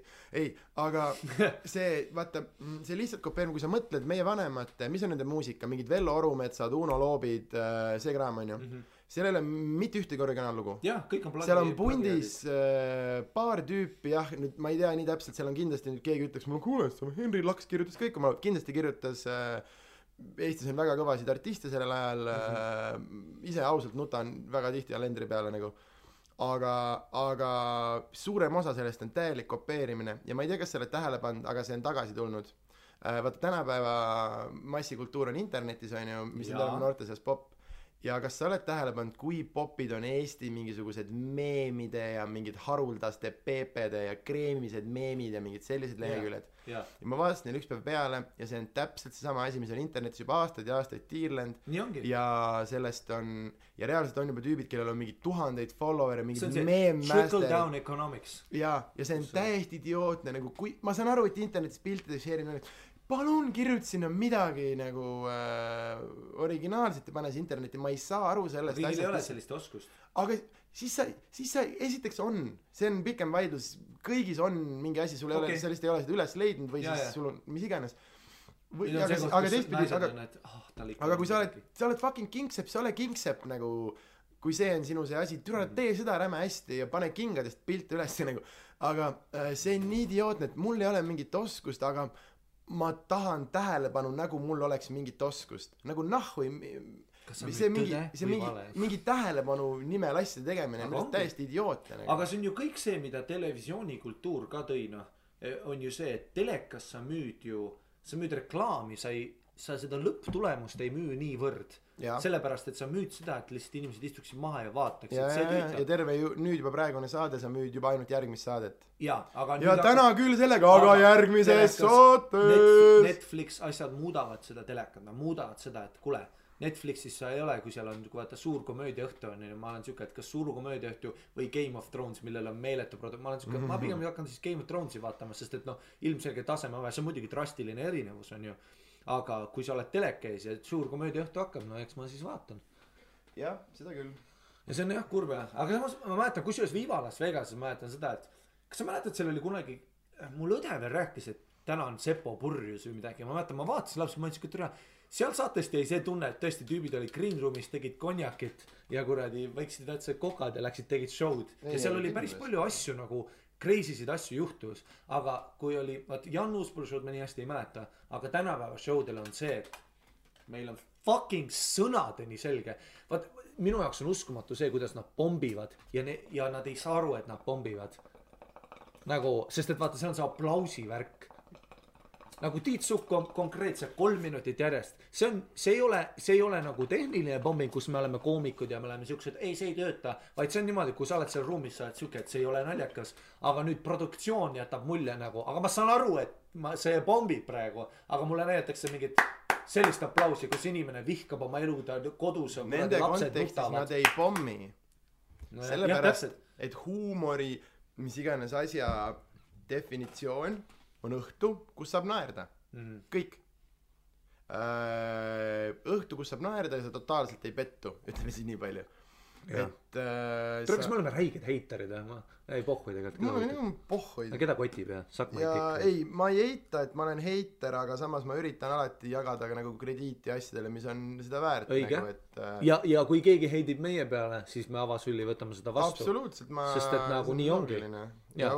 aga see, vaata, see lihtsalt kopeerimine, kui sa mõtled meie vanemate, mis on nende muusika, mingid Vello Orumetsad, Uno Loobid, see kraam on ju, seal ei ole mitte ühtegi originaallugu. Seal on pundis paar tüüpi, nüüd ma ei tea nii täpselt, seal on kindlasti nüüd keegi ütleks, kuule, Henri Laks kirjutas kõik, ma kindlasti kirjutas Eestis on väga kõvasid artiste sellel ajal, ise ausalt nutan väga tihti kalendri peale nagu. Aga suurem osa sellest on täielik kopeerimine ja ma ei tea, kas sa oled tähele pannud, aga see on tagasi tulnud. Vaata, tänapäeva massikultuur on internetis, on ju, mis on noorte seas pop. Ja kas sa oled tähele pannud, kui popid on Eesti mingisugused meemide ja mingid haruldaste peepede ja kreemised meemid ja mingid sellised leheküljed. Ja ma vaatasin neil üks päev peale ja see on täpselt seesama asi, mis on internetis juba aastaid ja aastaid tiirlend. Ja sellest on, ja reaalselt on juba tüübid, kellel on mingid 1000 follower'e, mingid meemmaster. Trickle down economics. Ja see on täiesti idiootne, nagu kui, ma saan aru, et internetis piltide share'imine, palun kirjuta sinna midagi nagu originaalselt ja pane see interneti, ma ei saa aru sellest asjast. Riigil ei ole sellist oskust. Aga siis sa esiteks on, see on pikem vaidlus, kõigis on mingi asi, sul ei ole, sa lihtsalt ei ole seda üles leidnud või siis sul on mis iganes. Aga teistpidi, aga kui sa oled fucking kingsepp, sa ole kingsepp nagu, kui see on sinu see asi, tee seda räme hästi ja pane kingadest pilte üles nagu, aga see on nii idiootne, et mul ei ole mingit oskust, aga ma tahan tähelepanu, nagu mul oleks mingit oskust. Nagu nahhu, see mingi tähelepanu nimel asjade tegemine, millest täiesti idiootne. Aga see on ju kõik see, mida televisioonikultuur ka tõi, on ju see, et telekas sa müüd reklaami, sa seda lõpptulemust ei müü niivõrd. Sellepärast, et sa müüd seda, et lihtsalt inimesed istuksid maha ja vaataks. Ja terve nüüd juba praegune saade, sa müüd juba ainult järgmist saadet. Ja täna küll sellega, aga järgmises saates. Netflix asjad muudavad seda telekat, nad muudavad seda, et kuule, Netflixis sa ei ole, kui seal on vaata suur komöödiaõhtu on, ma olen siuke, et kas suur komöödiaõhtu või Game of Thrones, millel on meeletu produkt, ma olen siuke, ma pigem hakkan siis Game of Thronesi vaatama, sest et ilmselge taseme, see on muidugi drastiline erinevus on ju. Aga kui sa oled telekeis ja suur komöödiaõhtu hakkab, eks ma siis vaatan. Jah, seda küll. Ja see on jah kurb. Aga ma mäletan, kusjuures Viva Las Vegas, ma mäletan seda, et kas sa mäletad, seal oli kunagi, mul õde veel rääkis, et täna on Sepo purjus või midagi. Ma mäletan, ma vaatasin lapsi, ma ütlesin, et türa, seal saatest jäi see tunne, et tõesti tüübid olid green room'is, tegid konjakit ja kuradi vaiksid täitsa kokad ja läksid, tegid show'd. Ja seal oli päris palju asju nagu crazysid asju juhtus, aga kui oli, Jan Uuspõllu show'd me nii hästi ei mäleta, aga tänapäeva show'del on see, et meil on fucking sõnadeni selge. Minu jaoks on uskumatu see, kuidas nad pombivad ja nad ei saa aru, et nad pombivad. Nagu, sest et vaata, see on see aplausi värk. nagu Tiit Sukk konkreetselt 3 minutit järjest. See ei ole nagu tehniline pomming, kus me oleme koomikud ja me oleme siuksed, ei, see ei tööta, vaid see on niimoodi, kui sa oled seal ruumis, sa oled siuke, et see ei ole naljakas, aga nüüd produktsioon jätab mulje nagu, aga ma saan aru, et see pommib praegu, aga mulle näidatakse mingit sellist aplausi, kus inimene vihkab oma elu, ta kodus on. Nende kontekstis nad ei pommi. Sellepärast, et huumori, mis iganes asja definitsioon on õhtu, kus saab naerda. Kõik. Õhtu, kus saab naerda ja sa totaalselt ei pettu. Ütleme siis nii palju. Kas me oleme räiged heiterid? Ei pohhui tegelikult. Ma olen pohhui. Keda kotib ja sakma ja ei, ma ei heita, et ma olen heiter, aga samas ma üritan alati jagada ka nagu krediiti asjadele, mis on seda väärt. Õige. Nagu, et, ja kui keegi heidib meie peale, siis me avasülli võtame seda vastu. Absoluutselt. Sest et nagu nii ongi. Ja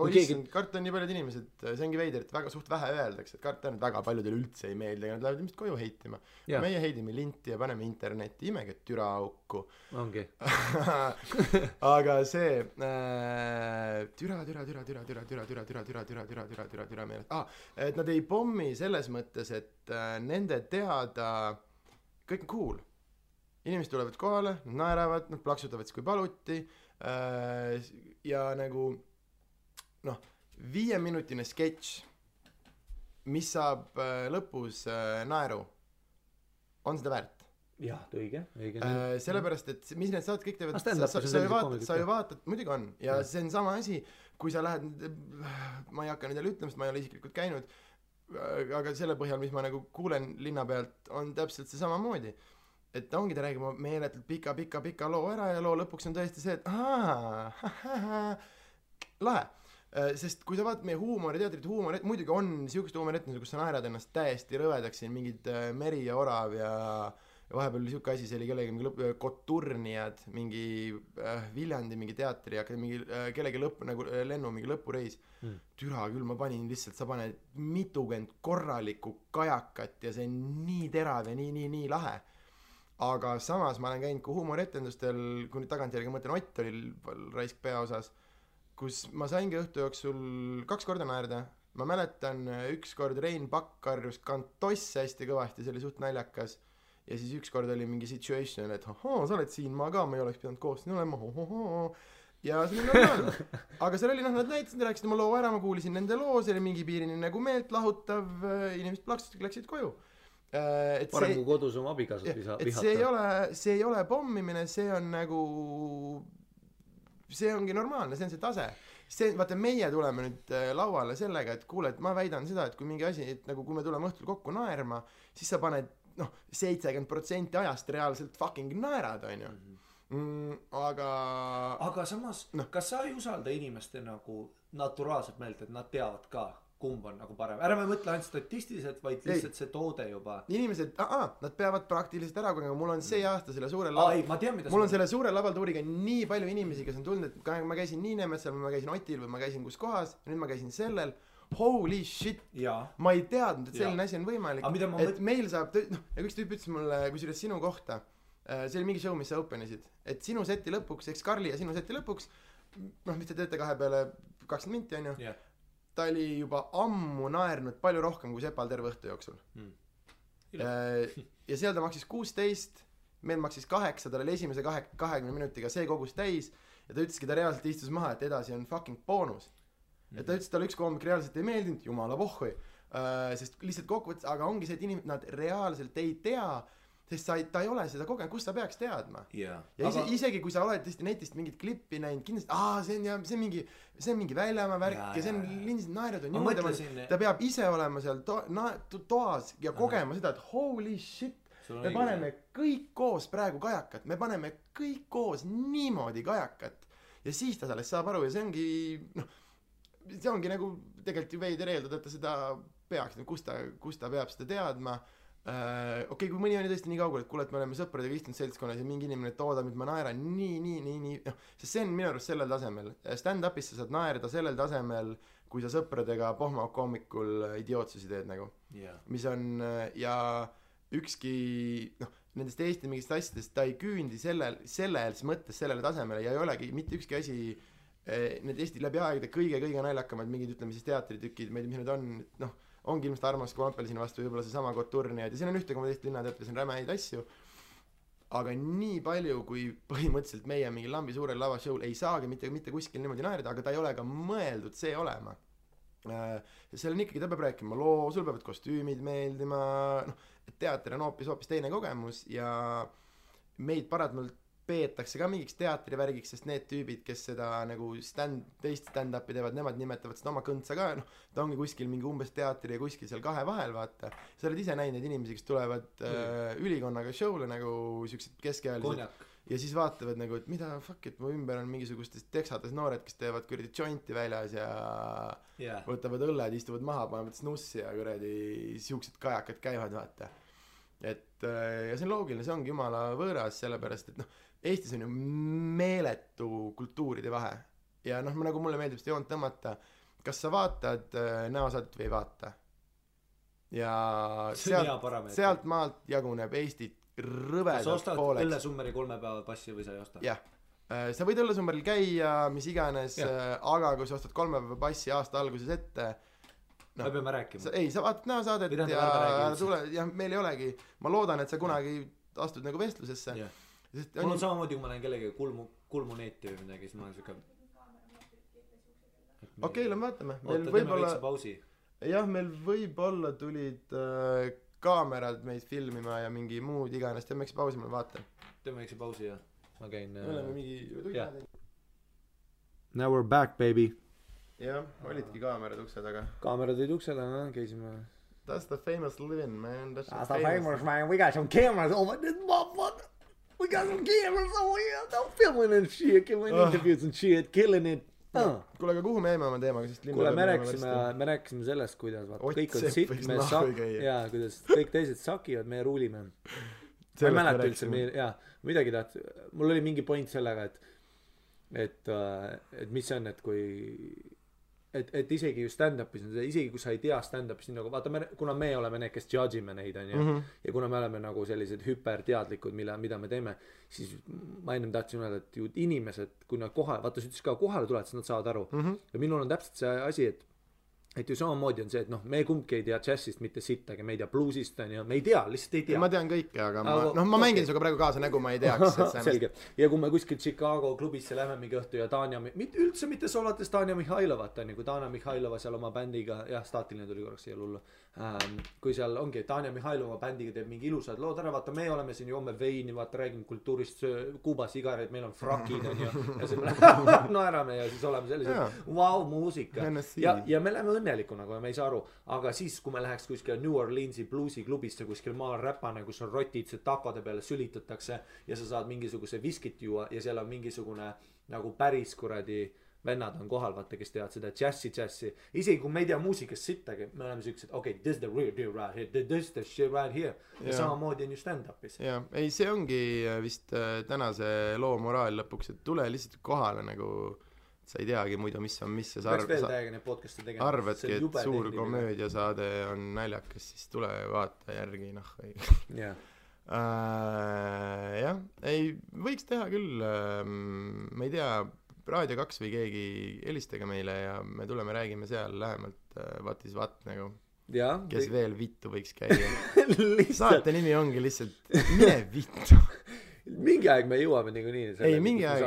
karta on nii paljud inimesed, see ongi veider, et väga suht vähe öeldakse, et karta on, et väga paljudel üldse ei meeldi, nad lähevad ilmselt koju heitima. Meie heidime linti ja paneme internetti, imege türa aukku. Ongi. Aga see türa meelest. Et nad ei pommi selles mõttes, et nende teada kõik on cool. Inimesed tulevad kohale, nad naeravad, nad plaksutavad kui paluti ja nagu 5-minutine sketš, mis saab lõpus naeru, on seda väärt. Jah, õige. Sellepärast, et mis need saad kõik teevad, sa ju vaatad, muidugi on, ja see on sama asi, kui sa lähed, ma ei hakka nüüd jälle ütlema, sest ma ei ole isiklikult käinud, aga selle põhjal, mis ma nagu kuulen linna pealt, on täpselt see samamoodi. Et ongi, ta räägib meeletult pika loo ära ja loo lõpuks on tõesti see, et lahe. Sest kui sa vaatad meie huumoriteatrit, muidugi on siukest huumorietendus, kus sa naerad ennast täiesti rõvedaks, siin mingid Meri ja Orav ja vahepeal oli siuke asi, see oli kellegi mingi Koturnijad, mingi Viljandi mingi teatri, mingi kellegi nagu lennu mingi lõpureis. Türa küll, ma panin lihtsalt, sa paned mitukend korralikku kajakat ja see on nii terav ja nii lahe. Aga samas ma olen käinud kui huumorietendustel, kui nüüd tagantjärgi mõtlen, Ott oli raisk peaosas, kus ma saingi õhtu jooksul 2 korda naerda. Ma mäletan, 1 kord Rein Pakk karjus Kantosse hästi kõvasti, see oli suht naljakas. Ja siis 1 kord oli mingi situation, et sa oled siin, ma ka, ma ei oleks pidanud koos siin olema. Ja see oli normaalne. Aga seal oli, nad näitasid, rääkisid oma loo ära, ma kuulisin nende loo, see oli mingi piirini nagu meelt lahutav, inimesed plaksusid, läksid koju. Parem kui kodus oma abikasut vihata. Et see ei ole pommimine, see on nagu... See ongi normaalne, see on see tase. Vaata, meie tuleme nüüd lauale sellega, et kuule, et ma väidan seda, et kui mingi asi, et nagu kui me tuleme õhtul kokku naerma, siis sa paned 70% ajast reaalselt fucking naerad, on ju. Aga samas, kas sa ei usalda inimeste nagu naturaalselt meelt, et nad teavad ka, kumb on nagu parem? Ära me mõtle ainult statistiliselt, vaid lihtsalt see toode juba. Inimesed, nad peavad praktiliselt ära, kui mul on see aasta selle suure laval. Mul on selle suure lavaltuuriga nii palju inimesi, kes on tulnud, et ma käisin Niinemetsal, ma käisin Otil või ma käisin kus kohas, nüüd ma käisin sellel. Holy shit. Ma ei teadnud, et selline asi on võimalik. Et meil saab, üks tüüp ütles mulle, kui see oli sinu kohta, see oli mingi show, mis sa openisid, et sinu seti lõpuks, eks Karli ja sinu seti lõpuks, mis te teete 2 peale 20 minti, on ju? Ta oli juba ammu naernud palju rohkem kui Sepal terve õhtu jooksul. Ja seal ta maksis 16, meil maksis 8, tal oli esimese 20 minutiga see kogus täis ja ta ütleski, ta reaalselt istus maha, et edasi on fucking boonus. Et ta ütles, tal üks koomik reaalselt ei meeldinud, jumala pohhui, sest lihtsalt kokkuvõttes, aga ongi see, et inimesed, nad reaalselt ei tea, sest ta ei ole seda kogenud, kus ta peaks teadma. Ja isegi kui sa oled tõesti netist mingit klippi näinud, kindlasti, see on mingi väljamaa värk ja see on linsid naerad on juurde, ta peab ise olema seal toas ja kogema seda, et holy shit, me paneme kõik koos praegu kajakat, me paneme kõik koos niimoodi kajakat ja siis ta sellest saab aru ja see ongi nagu tegelikult ju veider eeldada, et ta seda peaks, kus ta peab seda teadma. Okei, kui mõni on tõesti nii kaugel, et kuule, et me oleme sõpradega istunud seltskonnas ja mingi inimene toodab, et ma naeran nii, sest see on minu arust sellel tasemel. Stand-upis sa saad naerda sellel tasemel, kui sa sõpradega pohmakoomikul idiootsusi teed nagu. Mis on, ja ükski, nendest Eesti mingist asjadest, ta ei küündi selles mõttes sellele tasemele ja ei olegi mitte ükski asi, need Eesti läbi aegade kõige naljakamad mingid, ütleme siis teatritükid, ma ei tea, mis need on, ongi ilmselt armas Apelsini vastu võib-olla seesama Coturniad ja siin on ühte, kui ma teist linnateatris on räme häid asju, aga nii palju, kui põhimõtteliselt meie mingi lambi suurel lavashow'l ei saagi mitte kuskil niimoodi naerida, aga ta ei ole ka mõeldud see olema. Seal on ikkagi, ta peab rääkima loo, sul peavad kostüümid meeldima, teater on hoopis teine kogemus ja meid paratmalt peetakse ka mingiks teatrivärgiks, sest need tüübid, kes seda nagu teist stand-upi teevad, nemad nimetavad seda oma kõntsa ka, ta ongi kuskil mingi umbes teatri ja kuskil seal kahe vahel, vaata. Sa oled ise näinud neid inimesi, kes tulevad ülikonnaga show'le nagu siuksed keskealised ja siis vaatavad nagu, et mida fuck, et mu ümber on mingisugustes teksates noored, kes teevad kuradi jointi väljas ja võtavad õlled, istuvad maha, panevad snussi ja kuradi siuksed kajakad käivad, vaata. Et ja see on loogiline, see ongi jumala võõras, sellepärast, et Eestis on ju meeletu kultuuride vahe ja nagu mulle meeldib seda joont tõmmata, kas sa vaatad näosaadet või ei vaata ja sealt maalt jaguneb Eestit rõvedalt pooleks. Kas ostad Õllesummeri 3 päeva passi või sa ei osta? Jah, sa võid Õllesummeril käia mis iganes, aga kui sa ostad 3 päeva passi aasta alguses ette me peame rääkima. Sa vaatad näosaadet ja tule, meil ei olegi, ma loodan, et sa kunagi astud nagu vestlusesse. Mul on samamoodi, kui ma näen kellegi kulmuneeti või midagi, siis ma olen siuke okei, vaatame. Teeme väikse pausi. Jah, meil võib-olla tulid kaamerad meid filmima ja mingi muud iganes. Teeme väikse pausi, ma vaatan. Teeme väikse pausi ja ma käin Now we're back, baby. Jah, olidki kaamerad ukse taga. Kaamerad olid ukse taga, käisime. That's the famous living, man. That's the famous, man. We got some cameras over this motherfucker. We got some cameras over here. I'm filming and shit, giving interviews and shit, killing it. Kuule, aga kuhu me jäime oma teemaga? Kuule, me rääkisime sellest, kuidas kõik on sitt, me kuidas kõik teised sakivad, me ruulime. Ma ei mäleta üldse, midagi mul oli mingi point sellega, et mis see on, et kui et isegi ju stand-upis on see, isegi kui sa ei tea stand-upis nii nagu, vaata, kuna me oleme need, kes judge'ime neid, on ju, ja kuna me oleme nagu sellised hüperteadlikud, mida me teeme, siis ma ennem tahtsin öelda, et ju inimesed, kui nad vaata, sa ütles ka kohale tuled, siis nad saavad aru. Ja minul on täpselt see asi, et ju samamoodi on see, et me kumbki ei tea jazzist mitte sittagi, me ei tea bluesist, me ei tea, lihtsalt ei tea. Ma tean kõike, aga ma mängin suga praegu kaasa, nagu ma ei teaks. Selge. Ja kui me kuskil Chicago klubisse lähme mingi õhtu ja üldse mitte solates Tanja Mihhailovat, kui Tanja Mihhailova seal oma bändiga, staatiline tuli korraks siia lullu, kui seal ongi Tanja Mihhailova bändiga teeb mingi ilusad lood ära, vaata, me oleme siin joome veini, vaata, räägime kultuurist, Kuuba sigareid, meil on frakid, ja siis me naerame ja siis oleme sellised, vau, muusika. Ja me läheme õnnelikuna, kui me ei saa aru, aga siis, kui me läheks kuskil New Orleansi bluesi klubisse kuskil maal räpane, kus on rotid, see takode peale sülitatakse ja sa saad mingisuguse viskit juua ja seal on mingisugune nagu päris kuradi vennad on kohal, vaata, kes teavad seda jazzi, isegi kui me ei tea muusikast sittagi, me oleme siuksed, this is the real deal right here, this is the shit right here ja samamoodi on ju stand-upis. Jah, ei, see ongi vist tänase loo moraal lõpuks, et tule lihtsalt kohale nagu sa ei teagi muidu, mis on mis ja sa arvadki, et suur komöödiasaade on näljakas, siis tule vaata järgi, jah, ei, võiks teha küll, ma ei tea, Raadio 2 või keegi helistage meile ja me tuleme, räägime seal lähemalt vaat nagu, kes veel vittu võiks käia. Saate nimi ongi lihtsalt mine vittu. Mingi aeg me jõuame niikuinii. Ei, mingi aeg.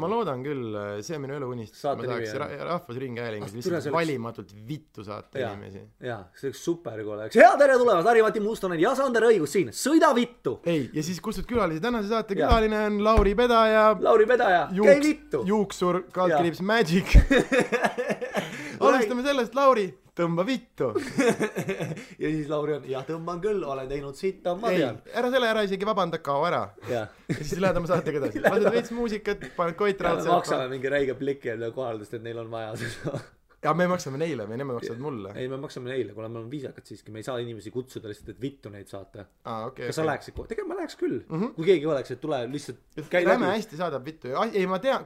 Ma loodan küll, see on minu eluunist. Ma tahaks Rahvusringhäälingus lihtsalt valimatult vittu saata inimesi. Jaa, see oleks super, kui oleks. Hea, tere tulevast, Harri-Mati Mustonen ja Sander Õigus siin. Sõida vittu! Ei, ja siis kustud külalisi. Tänase saate külaline on Lauri Pedaja. Käi vittu! Juuksur, kaldkriips Magic. Alustame sellest, Lauri. Tõmba vittu. Ja siis Lauri on, tõmban küll, olen teinud sitta, ma tean. Ära selle ära isegi vabanda, kao ära. Ja siis lähed oma saatega edasi. Lased veits muusikat, paned koitraad. Maksame mingi räige plikki ja kohaldust, et neil on vaja seda. Ja me maksame neile või nemad maksavad mulle? Ei, me maksame neile, kuna me oleme viisakad siiski. Me ei saa inimesi kutsuda lihtsalt, et vittu neid saata. Kas sa läheksid kohe? Tegelikult ma läheks küll. Kui keegi oleks, et tule lihtsalt käi läbi. Räme hästi saadab vittu. Ei, ma tean,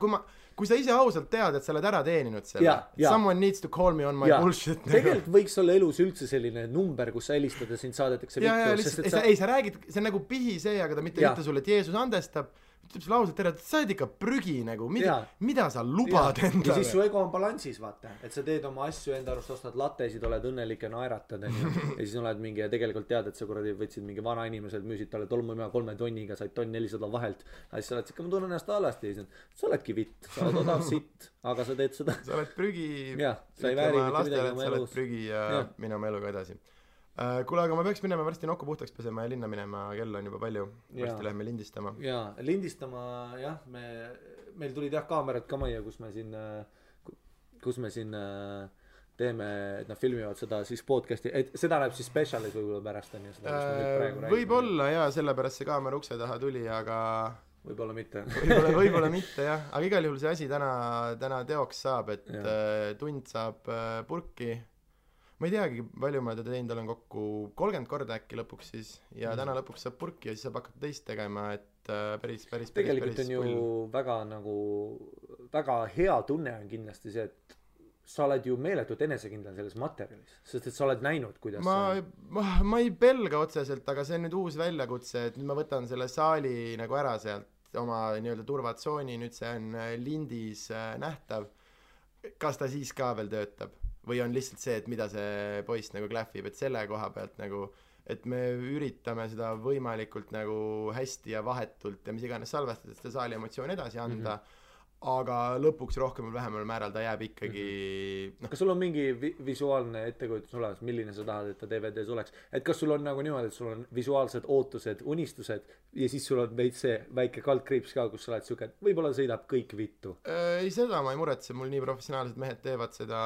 kui sa ise ausalt tead, et sa oled ära teeninud selle. Someone needs to call me on my bullshit. Tegelikult võiks olla elus üldse selline number, kus sa helistad ja sind saadetakse vittu. Ei, sa räägid, see on nagu pihi see, aga ta mitte ütle sulle, et Jeesus andestab, ütleb see lause, tere, sa oled ikka prügi nagu, mida sa lubad endale? Ja siis su ego on balansis, vaata, et sa teed oma asju enda arust, ostad lattesid, oled õnnelik ja naeratad ja siis oled mingi ja tegelikult tead, et sa kuradi võtsid mingi vana inimeselt, müüsid talle tolmuimeha 3 tonniga, said 1,400 vahelt ja siis sa oled ikka, ma tunnen ennast alasti ja siis sa oledki vitt, sa oled odav sitt, aga sa teed seda. Sa oled prügi, sa ei vääri mitte midagi oma elus. Sa oled prügi ja mine oma eluga edasi. Kuule, aga ma peaks minema varsti nokku puhtaks pesema ja linna minema, kell on juba palju. Varsti lähme lindistama. Jaa, lindistama, jah, meil tulid jah kaamerad ka majja, kus me siin teeme, et nad filmivad seda siis podcasti, et seda näeb siis specialis võib-olla pärast on ju seda, kus me nüüd praegu räägime. Võib-olla jaa, sellepärast see kaamera ukse taha tuli, aga võib-olla mitte. Võib-olla mitte jah, aga igal juhul see asi täna teoks saab, et tund saab purki. Ma ei teagi, palju ma teda teinud olen kokku 30 korda äkki lõpuks siis ja täna lõpuks saab purki ja siis saab hakata teist tegema, et päris tegelikult on ju väga nagu väga hea tunne on kindlasti see, et sa oled ju meeletult enesekindel selles materjalis, sest et sa oled näinud, kuidas ma ei pelga otseselt, aga see on nüüd uus väljakutse, et nüüd ma võtan selle saali nagu ära sealt oma nii-öelda turvatsooni, nüüd see on lindis nähtav, kas ta siis ka veel töötab või on lihtsalt see, et mida see poiss nagu klähvib, et selle koha pealt nagu, et me üritame seda võimalikult nagu hästi ja vahetult ja mis iganes salvestada, seda saali emotsiooni edasi anda, aga lõpuks rohkem või vähemal määral ta jääb ikkagi Kas sul on mingi visuaalne ettekujutus olemas, milline sa tahad, et ta DVD-s oleks? Et kas sul on nagu niimoodi, et sul on visuaalsed ootused, unistused ja siis sul on veits see väike kaldkriips ka, kus sa oled siuke, et võib-olla sõidab kõik vittu? Ei, seda ma ei muretse, mul nii professionaalsed mehed teevad seda.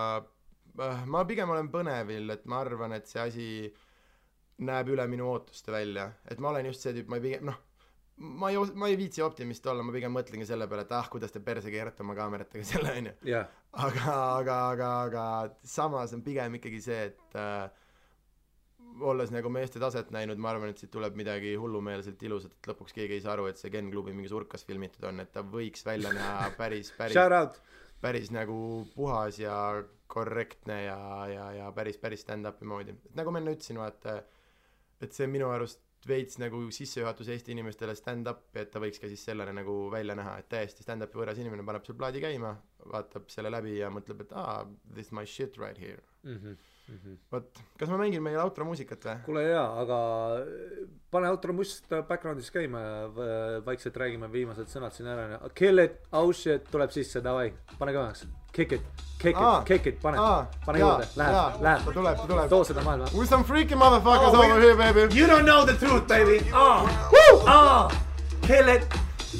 Ma pigem olen põnevil, et ma arvan, et see asi näeb üle minu ootuste välja, et ma olen just see tüüp, ma ei viitsi optimist olla, ma pigem mõtlengi selle peale, et kuidas te perse keerata oma kaameratega selle on ju. Aga samas on pigem ikkagi see, et olles nagu meeste taset näinud, ma arvan, et siit tuleb midagi hullumeelselt ilusat, et lõpuks keegi ei saa aru, et see Ken Klubi mingi surkas filmitud on, et ta võiks välja näha päris nagu puhas ja korrektne ja päris stand-upi moodi. Et nagu ma enne ütlesin, vaata, et see minu arust veits nagu sissejuhatus Eesti inimestele stand-upi, et ta võiks ka siis sellele nagu välja näha, et täiesti stand-upi võrras inimene paneb sul plaadi käima, vaatab selle läbi ja mõtleb, et this is my shit right here. Võt, kas ma mängin meil outro muusikat või? Kuule jaa, aga pane outro muust backgroundis käima ja vaikselt räägime viimased sõnad siin ära. Kill it, oh shit, tuleb sisse, davai, pane kõvaks. Kick it, pane juurde, läheb. Ta tuleb. Too seda maailma. With some freaky motherfuckers over here, baby. You don't know the truth, baby. Kill it,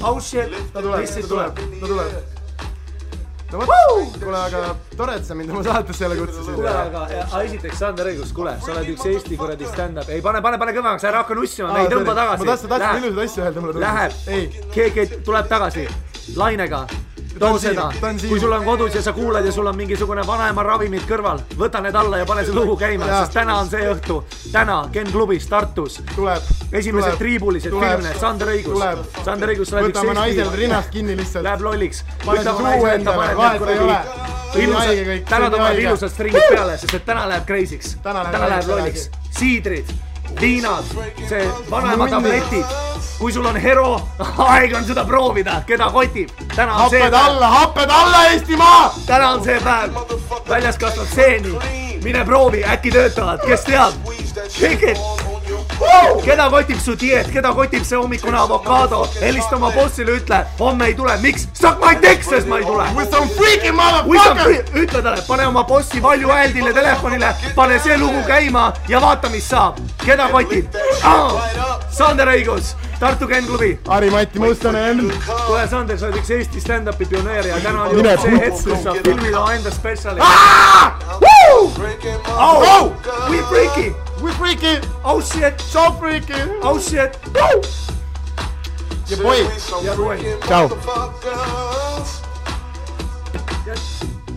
oh shit. Ta tuleb. No võt, kuule, aga tore, et sa mind oma saatesse jälle kutsusid. Kuule, aga esiteks Sander õigus, kuule, sa oled üks Eesti kuradi stand-up. Ei, pane kõvaks, ära hakka nussima, me ei tõmba tagasi. Ma tahtsin ilusad asju öelda, mulle tundus. Läheb, keegi tuleb tagasi, lainega. Too seda, kui sul on kodus ja sa kuulad ja sul on mingisugune vanaema ravimid kõrval, võta need alla ja pane see lugu käima, sest täna on see õhtu. Täna Ken Klubis Tartus. Esimesed triibulised filmne, Sander õigus. Sander õigus, sa oled üks võtame naisel rinnast kinni lihtsalt. Läheb lolliks. Pane see suu endale, vahet ei ole. Täna tuleb ilusad stringid peale, sest et täna läheb kreisiks. Täna läheb lolliks. Siidrid, viinad, see vanaema tabletid. Kui sul on hero, aeg on seda proovida, keda kotib. Täna on see päev. Happed alla Eestimaa! Täna on see päev. Väljas kasvab seeni. Mine proovi, äkki töötavad, kes teab. Kick it! Keda kotib su dieet, keda kotib see hommikune avokaado? Helista oma bossile, ütle, homme ei tule. Miks? Suck my dick, sest ma ei tule. With some freaky motherfucker! Ütle talle, pane oma bossi Valju Hääldile telefonile, pane see lugu käima ja vaata, mis saab. Keda kotib? Sander õigus, Tartu Ken Klubi. Ari-Mati Mustonen. Tule Sander, sa oled üks Eesti stand-upi pioneer ja täna on juba see hetk, kus sa filmid oma enda spetsiali. We freaky! We freaky! Oh shit! So freaky! Oh shit! Yeah boy! Ciao!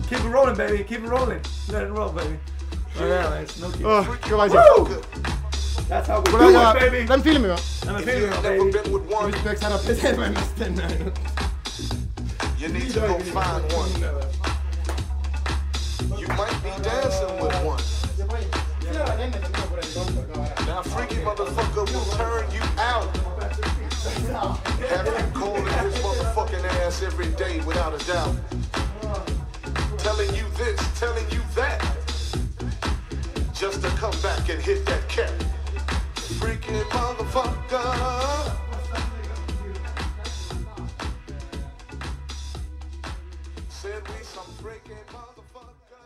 Keep it rolling, baby! Keep it rolling! Let it roll, baby! Oh yeah, man, it's no keep. Kõva asi! That's how we do it, baby! Lähme filmima! Lähme filmima, baby! Nüüd peaks ära pesema ennast enne ainult. You need to go find one. You might be dancing with one. Now freaky motherfucker will turn you out. Have you cold this every day without a doubt. Telling you this, telling you that. Just to come back and hit that cap. Freaking motherfucker. Said we some freaking motherfucker.